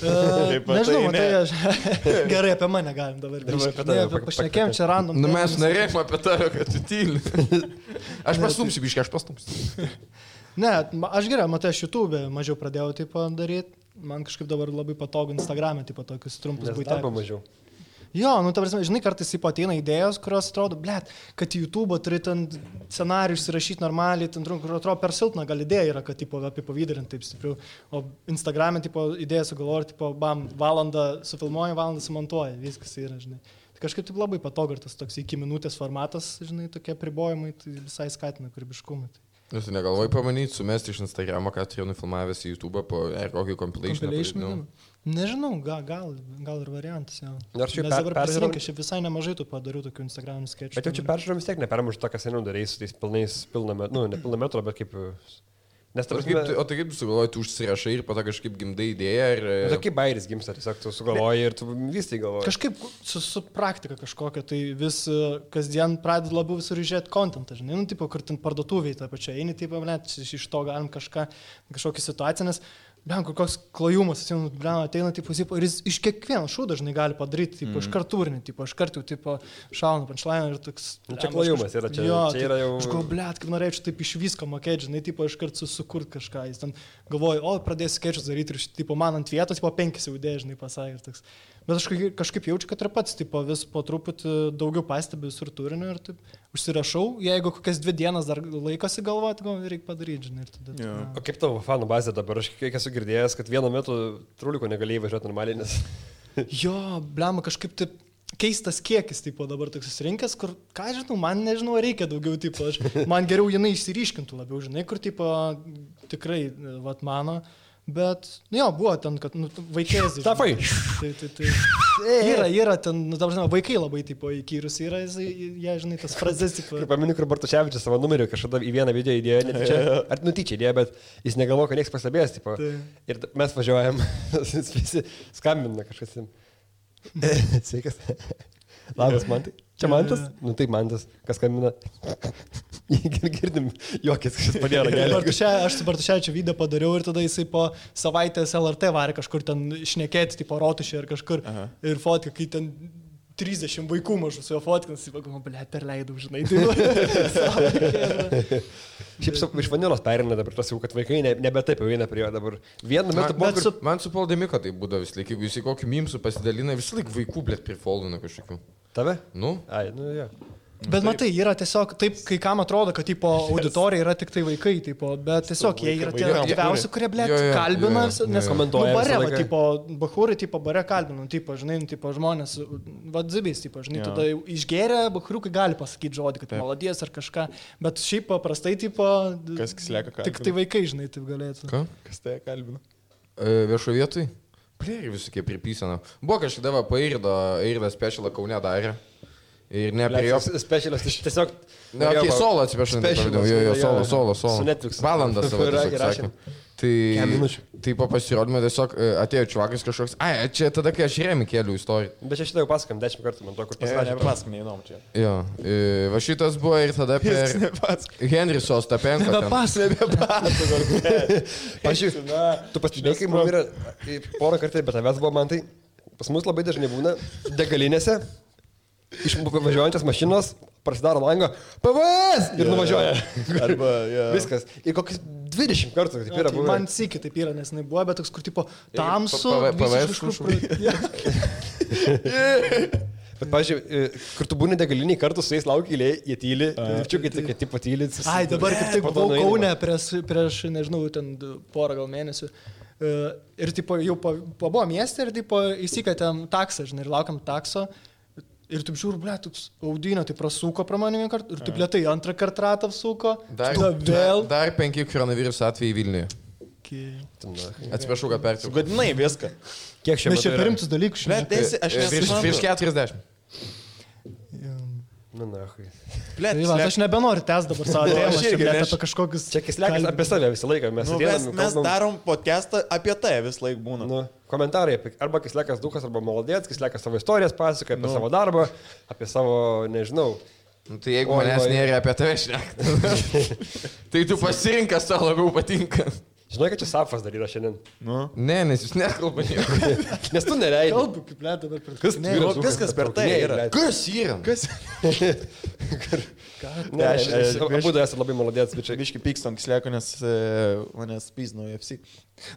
Nežinau, tai aš... Gerai, apie mane galim dabar grįžti. Pašnekėjom čia random. Nu mes norėjom apie tave, kad tu tyli. Aš pastumsiu, biškai, aš pastumsiu. Ne, aš gerai, matai, aš YouTube mažiau pradėjau tipo daryti. Man kažkaip dabar labai patogu Instagram'e, tipo tokius trumpus buitekus. Mažiau. Jo, nu, ta prasme, žinai, kartais taip ateina idėjos, kurios atrodo, blėt, kad į YouTube turi ten scenarijus įrašyti normaliai, ten kur atrodo per silpna gal idėja yra, kad tipo apie pavydarinti taip stipriau, o Instagram'e tipo idėją sugalvoju, tipo, bam, valandą sufilmuoju, valandą sumontuoju, viskas yra, žinai. Tai kažkaip taip labai patogu, tas toks iki minutės formatas, žinai, tokie apribojimai, tai visai skatina kūrybiškumą. Jūs negalvojai pamanyti, sumesti iš Instagramo, ką turėjau nufilmavęs į YouTube po kokį compilation? Nežinau, gal ir variantas. Nors jau peržiūrėjau, aš visai nemažai tų padariau tokių Instagram'ų sketchų. Bet jau čia peržiūrėjau vis tiek nepermuš to, kas seniau darėjai su tais pilnais, ne pilna metro, bet kaip... Nes, o tai kaip tu sugalvoji, tu užsirašai ir po to kažkaip gimdai idėją ir... Tai kaip bairis gimsta, tiesiog tu sugalvoji ir tu vis tai galvoji. Kažkaip su praktika kažkokia, tai vis kasdien pradedi labiau visur žiūrėti kontentą, žinai, nu, tipo, kur ten parduotuviai tą pačią eini, tipo, net iš to galim kažkokią situaciją, nes... Blen, koks klajumas, ateina, tipo, ir jis iš kiekvieno šūdo dažnai gali padaryti, tipo, iškart turinį, tipo, iškart jau, tipo, šauna punchline ir toks... Čia klajumas yra, čia yra jau... Aš galvoju, blėt, kaip norėčiau taip iš visko mokėti, žinai, tipo, iškart sukurti kažką. Jis ten galvoja, pradėsiu skečus daryti ir, tipo, man ant vietos, tipo, 5 jau idėja, žinai, pasakė ir toks. Bet aš kažkaip jaučiu, kad ir pats, tipo, vis po truputį daugiau pastebiu visur turinio ir taip užsirašau, jeigu kokias 2 dienas dar laikosi galvoti, gal reikia padaryti, žinai, ir tada... Yeah. O kaip tavo fanų bazė dabar? Aš kiek esu girdėjęs, kad vienu metu truliko negalėjai važiuoti normaliai, nes... Jo, blema, kažkaip taip keistas kiekis, tipo, dabar toks susirinkęs, kur, ką žinau, man nežinau, reikia daugiau, tipo, man geriau jinai išsiryškintų labiau, žinai, kur, tipo, tikrai, vat, mano... Bet, jo, buvo ten, kad, nu, vaikėzai. Tafai! Yra ten, nu, dabar, žinoma, vaikai labai, tipo, įkyrus yra, jie, žinai, tas frazes, tipo. Kaip paminu, kur Bartuševičius savo numerį kažkada į vieną video įdėjo, netyčia, ar nutyčia įdėjo, bet jis negalvoja, kad nieks pastebės, tipo. Ir mes važiuojam, visi skambina kažkas. Sveikas. Labas, Mantai. Čia Mantas? Nu taip, Mantas. Kas skambina? Girdim, juokės, kažkas padėjo ragelį. Aš su Bartuševičiu video padariau ir tada jisai po savaitės LRT varė kažkur ten šnekėti, tipo rotušė ir kažkur. Aha. Ir fotka, kai ten 30 vaikų mažų su jo fotkinas, jis pagalvoja, blėt, perleidau, žinai. Šiaip iš vanilos perina dabar tas jau, kad vaikai nebe taip jau eina prie jo dabar. Vienu metu buvo... Man su Poldemiko tai būdavo vis laik, jeigu jis į kokį mimsų pasidalina, vis laik vaikų, blėt, prifoldina kažkokių. Tave? Nu? Ai, nu jo. Bet matai, yra tiesiog taip, kai kam atrodo, kad tipo, auditorija yra tik tai vaikai, tipo, bet tiesiog jie yra tie aktyviausi, kurie, blėt, kalbina, nes komentuoja. Nu, bare, tipo, bahūrai, tipo, bare kalbina, tipo, žinai, tipo, žmonės, vadzibės, tipo, žinai, tada išgeria, bahūriukai gali pasakyti žodį, kad maladies ar kažką, bet šiaip paprastai, tipo, kas lieka kalbina. Tik tai vaikai, žinai, taip galėtų. Ką? Kas tai kalbina? Viešo vietoj? Plėri visokie pripysana. Buvo kažkada Eirdą specialą Kaune darė. Ir ne prie jo... Specialas, tiesiog... Ne, okei, solo atsiprašau, solo. Su Netflix. Valandą savo tiesiog sakė. Tai po pasirodymą tiesiog atėjo čuvakas kažkoks, čia tada, kai aš Remi keliu istoriją. Bet čia šitą jau pasakam 10 kartų, man to, kur pasakė. Nepasakam, neįnom čia. Jo, va šitas buvo ir tada per Henris Ostapenko. Nebepasakam. Pažiūrėjau, tu pastebėjai, kai man yra porą kartų, bet tavęs buvo man tai, pas mus labai dažnai būna degalinėse. Iš važiuojančios mašinos prasidaro langą, PVS ir nuvažiuoja. Arba, viskas. Ir kokius 20 kartų taip yra buvę. Man sykį taip yra, nes jinai buvo, bet toks, kur tipo tamsu. PVS Bet, pažiūrėjau, kur tu būni degaliniai kartu su jais laukia eilėje, jie tyli, virčiukai tokie tipo tyli. Ai, dabar kaip tik buvau Kaune prieš, nežinau, ten porą gal mėnesių. Ir tipo jau pabuvo mieste ir tipo įsikatėm taksą, žinai, ir laukiam takso. Ir taip žiūrų, blėt, toks audinio, tai prasuko pro mane vieną kartą ir taip lėtai antrą kartą ratą apsuko. Dar 5 koronaviruso atvejai Vilniuje. Okay. Atsiprašau, kad pertraukiau. Sugadinai viską. Kiek šiandien? Mes čia per rimtus dalykus. Aš virš 40. Na, hui. Blet, Tai va, aš nebenoriu tęs dabar savo tėmą, aš irgi, apie kažkokius... Čia kislekas apie save visą laiką. Mes darom podcastą apie tai vis laik būna. Nu, komentarai apie arba kislekas dukas, arba maladėts, kislekas savo istorijas pasakoja, apie savo darbą, apie savo, nežinau. Nu, tai jeigu manęs nėra apie tave šnekti, tai tu pasirinkas, tau labiau patinka. Žinai, kad čia Safas dar yra šiandien. Nu. Ne, nes jūs nekalba nieko. Nes tu nereidai. Kalbu, kaip lėt dabar per... Viskas per tai yra. Kas yra? Kas? Ne, abu du esate labai maladėts, bičiai. Biški pykstam kisleko, nes manęs pyzino UFC.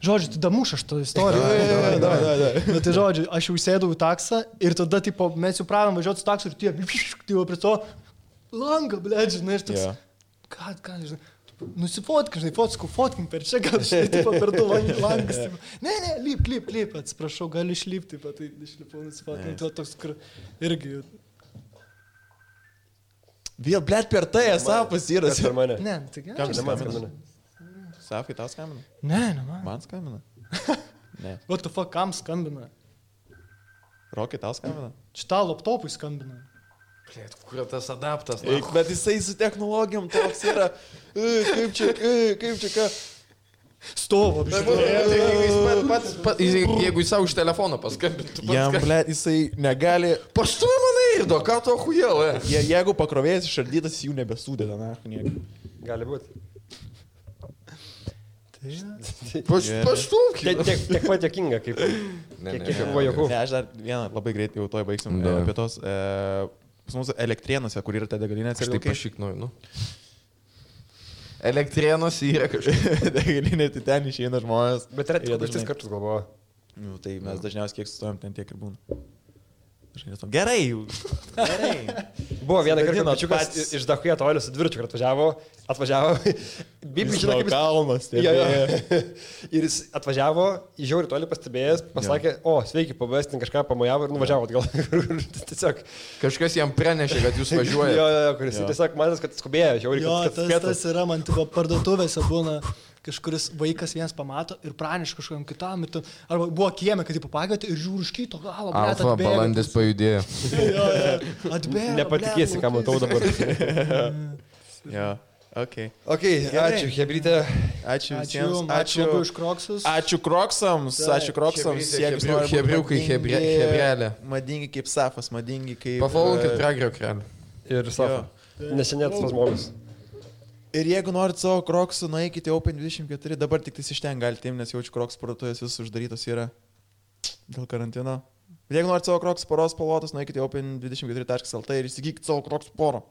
Žodžiu, tu damuš aš tą istoriją. Da. Nu, tai žodžiu, aš jau sėdau į taksą ir tada, tipo, mes jau pradėjom važiuoti su taksu ir tie, tipo, prie to langą, blėt, žinai, ir toks, ką, žinai, nusifotkim, žinai, fotkim per čia, gal, žinai, tipo, per du langas, tipo, ne, lip, atsiprašau, galiu išlipti, tipo, tai išlipau, nusifotkim, tai toks, kur irgi... Vėl, blėt, per tai, Safas yra. Per mane. Ne, tai gerai. Kam skambina? Safai, tau skambina? Ne, man. Man skambina? Ne. What the fuck, kam skambina? Rokai, tau skambina? Šitą laptopui skambina. Blėt, kur tas adaptas? Bet jisai su technologijom toks yra. Kaip čia, ką? Stovo, Jeigu jis savo iš telefono paskambintų. Jam, blėt, jisai negali... Paštuoj mane irdo, ką to hujel, Jeigu pakrovėjas išardytas, jų nebesūdėda, na, nieko. Gali būti. Paštumk. Tiek pat jokinga, kaip... Kiek buvo jokų. Ne, aš dar vieną labai greitai jau toj baigsim apie tos... Pas mūsų Elektrėnuose, kur yra ta degalinė. Aš taip pašiknoju, nu. Elektrėnuose yra kažkaip. Degalinė, tai ten išeina žmonės. Bet yra tik 3 kartus galvoju. Nu, tai mes dažniausiai kiek sustojom, ten tiek ir būna. Gerai. Buvo vieną kartą pačiukas iš Dahuja tolio su dvirčiu, kad atvažiavo. Bibi žino, kaip kalnas. Ir jis atvažiavo, žiauri toli pastebėjęs, pasakė, o, sveiki, pabės, ten kažką pamojavo ir nuvažiavo atgal. Tiesiog. Kažkas jam pranešė, kad jūs važiuojate. Jo, kuris tiesiog matęs, kad skubėjo, žiauri, kad spėtų. Jo, tas yra, man tipo parduotuvėse būna. Kažkuris vaikas vienas pamato ir praneša kažkam kitam. Arba buvo kieme, kad jį papagėti ir žiūri už kito galo. Alfa balandis pajudėjo. Atbėgo. Nepatikėsi, ką matau dabar. Jo, ok. Ačiū, Hebrytė. Ačiū visiems. Ačiū už Kroksus. Ačiū Kroksams. Hebriukai, hebrelė. Madingi kaip Safas, madingi kaip... Pafollowinkit Pragerio krelį. Ir Safą. Nesenėtas tas žmogus. Ir jeigu norit savo Kroksų, nueikite Open24, dabar tik tais iš ten galite imti, nes jaučiu Kroks parduotuvės vis uždarytos yra dėl karantino. Bet jeigu norit savo Kroks poros spalvotos, nueikite Open24.lt ir įsigykite savo Kroks porą.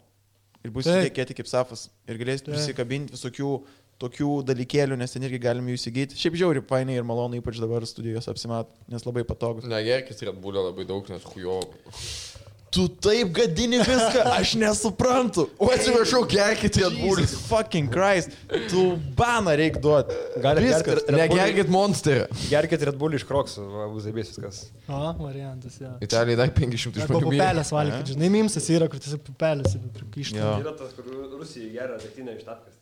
Ir bus įdėkėti kaip Safas. Ir galėsite prisikabinti visokių tokių dalykėlių, nes ten irgi galime jų įsigyti. Šiaip žiauri, painiai ir malonu, ypač dabar studijos apsimat, nes labai patogus. Negerkis Red Bull'o labai daug, nes hujo. Tu taip gadini viską, aš nesuprantu. O atsiprašau, gerkit Red Bull'ą. Jesus fucking Christ. Tu baną reik duoti. Negerkit Monsterį. Gerkit Red Bull iš Kroksų, bus zaibės viskas. O, variantas, jo. Italijai dar 500 žmonių. Arba pupelės valgykit, žinai, mimsas yra, kur tiesiog pupelės prikišta. Yra tas, kur Rusijai geria degtinę iš tapkas.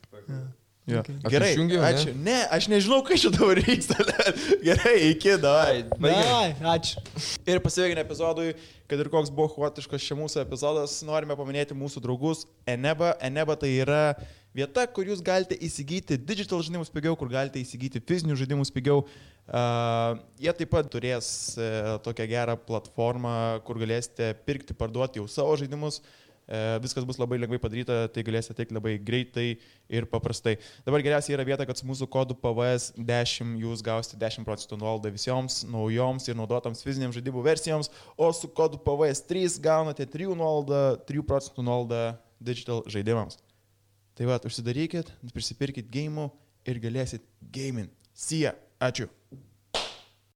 Jo. Gerai, ačiū. Ne, aš nežinau, kai čia dabar vyksta. Gerai, iki, davai. Ačiū. Ir pasiveikinę epizodui, kad ir koks buvo chaotiškas čia mūsų epizodas, norime paminėti mūsų draugus Eneba. Eneba tai yra vieta, kur jūs galite įsigyti digital žaidimus pigiau, kur galite įsigyti fizinius žaidimus pigiau. Jie taip pat turės tokią gerą platformą, kur galėsite pirkti, parduoti jau savo žaidimus. Viskas bus labai lengvai padaryta, tai galėsite teikti labai greitai ir paprastai. Dabar geriausia yra vieta, kad su mūsų kodu PVS10 jūs gausite 10% nuolaidą visoms naujoms ir naudotoms fiziniams žaidimų versijoms, o su kodu PVS3 gaunate 3% nuolaidą digital žaidimams. Tai va, užsidarykit, prisipirkit gėjimų ir galėsit gaming. See ya. Ačiū.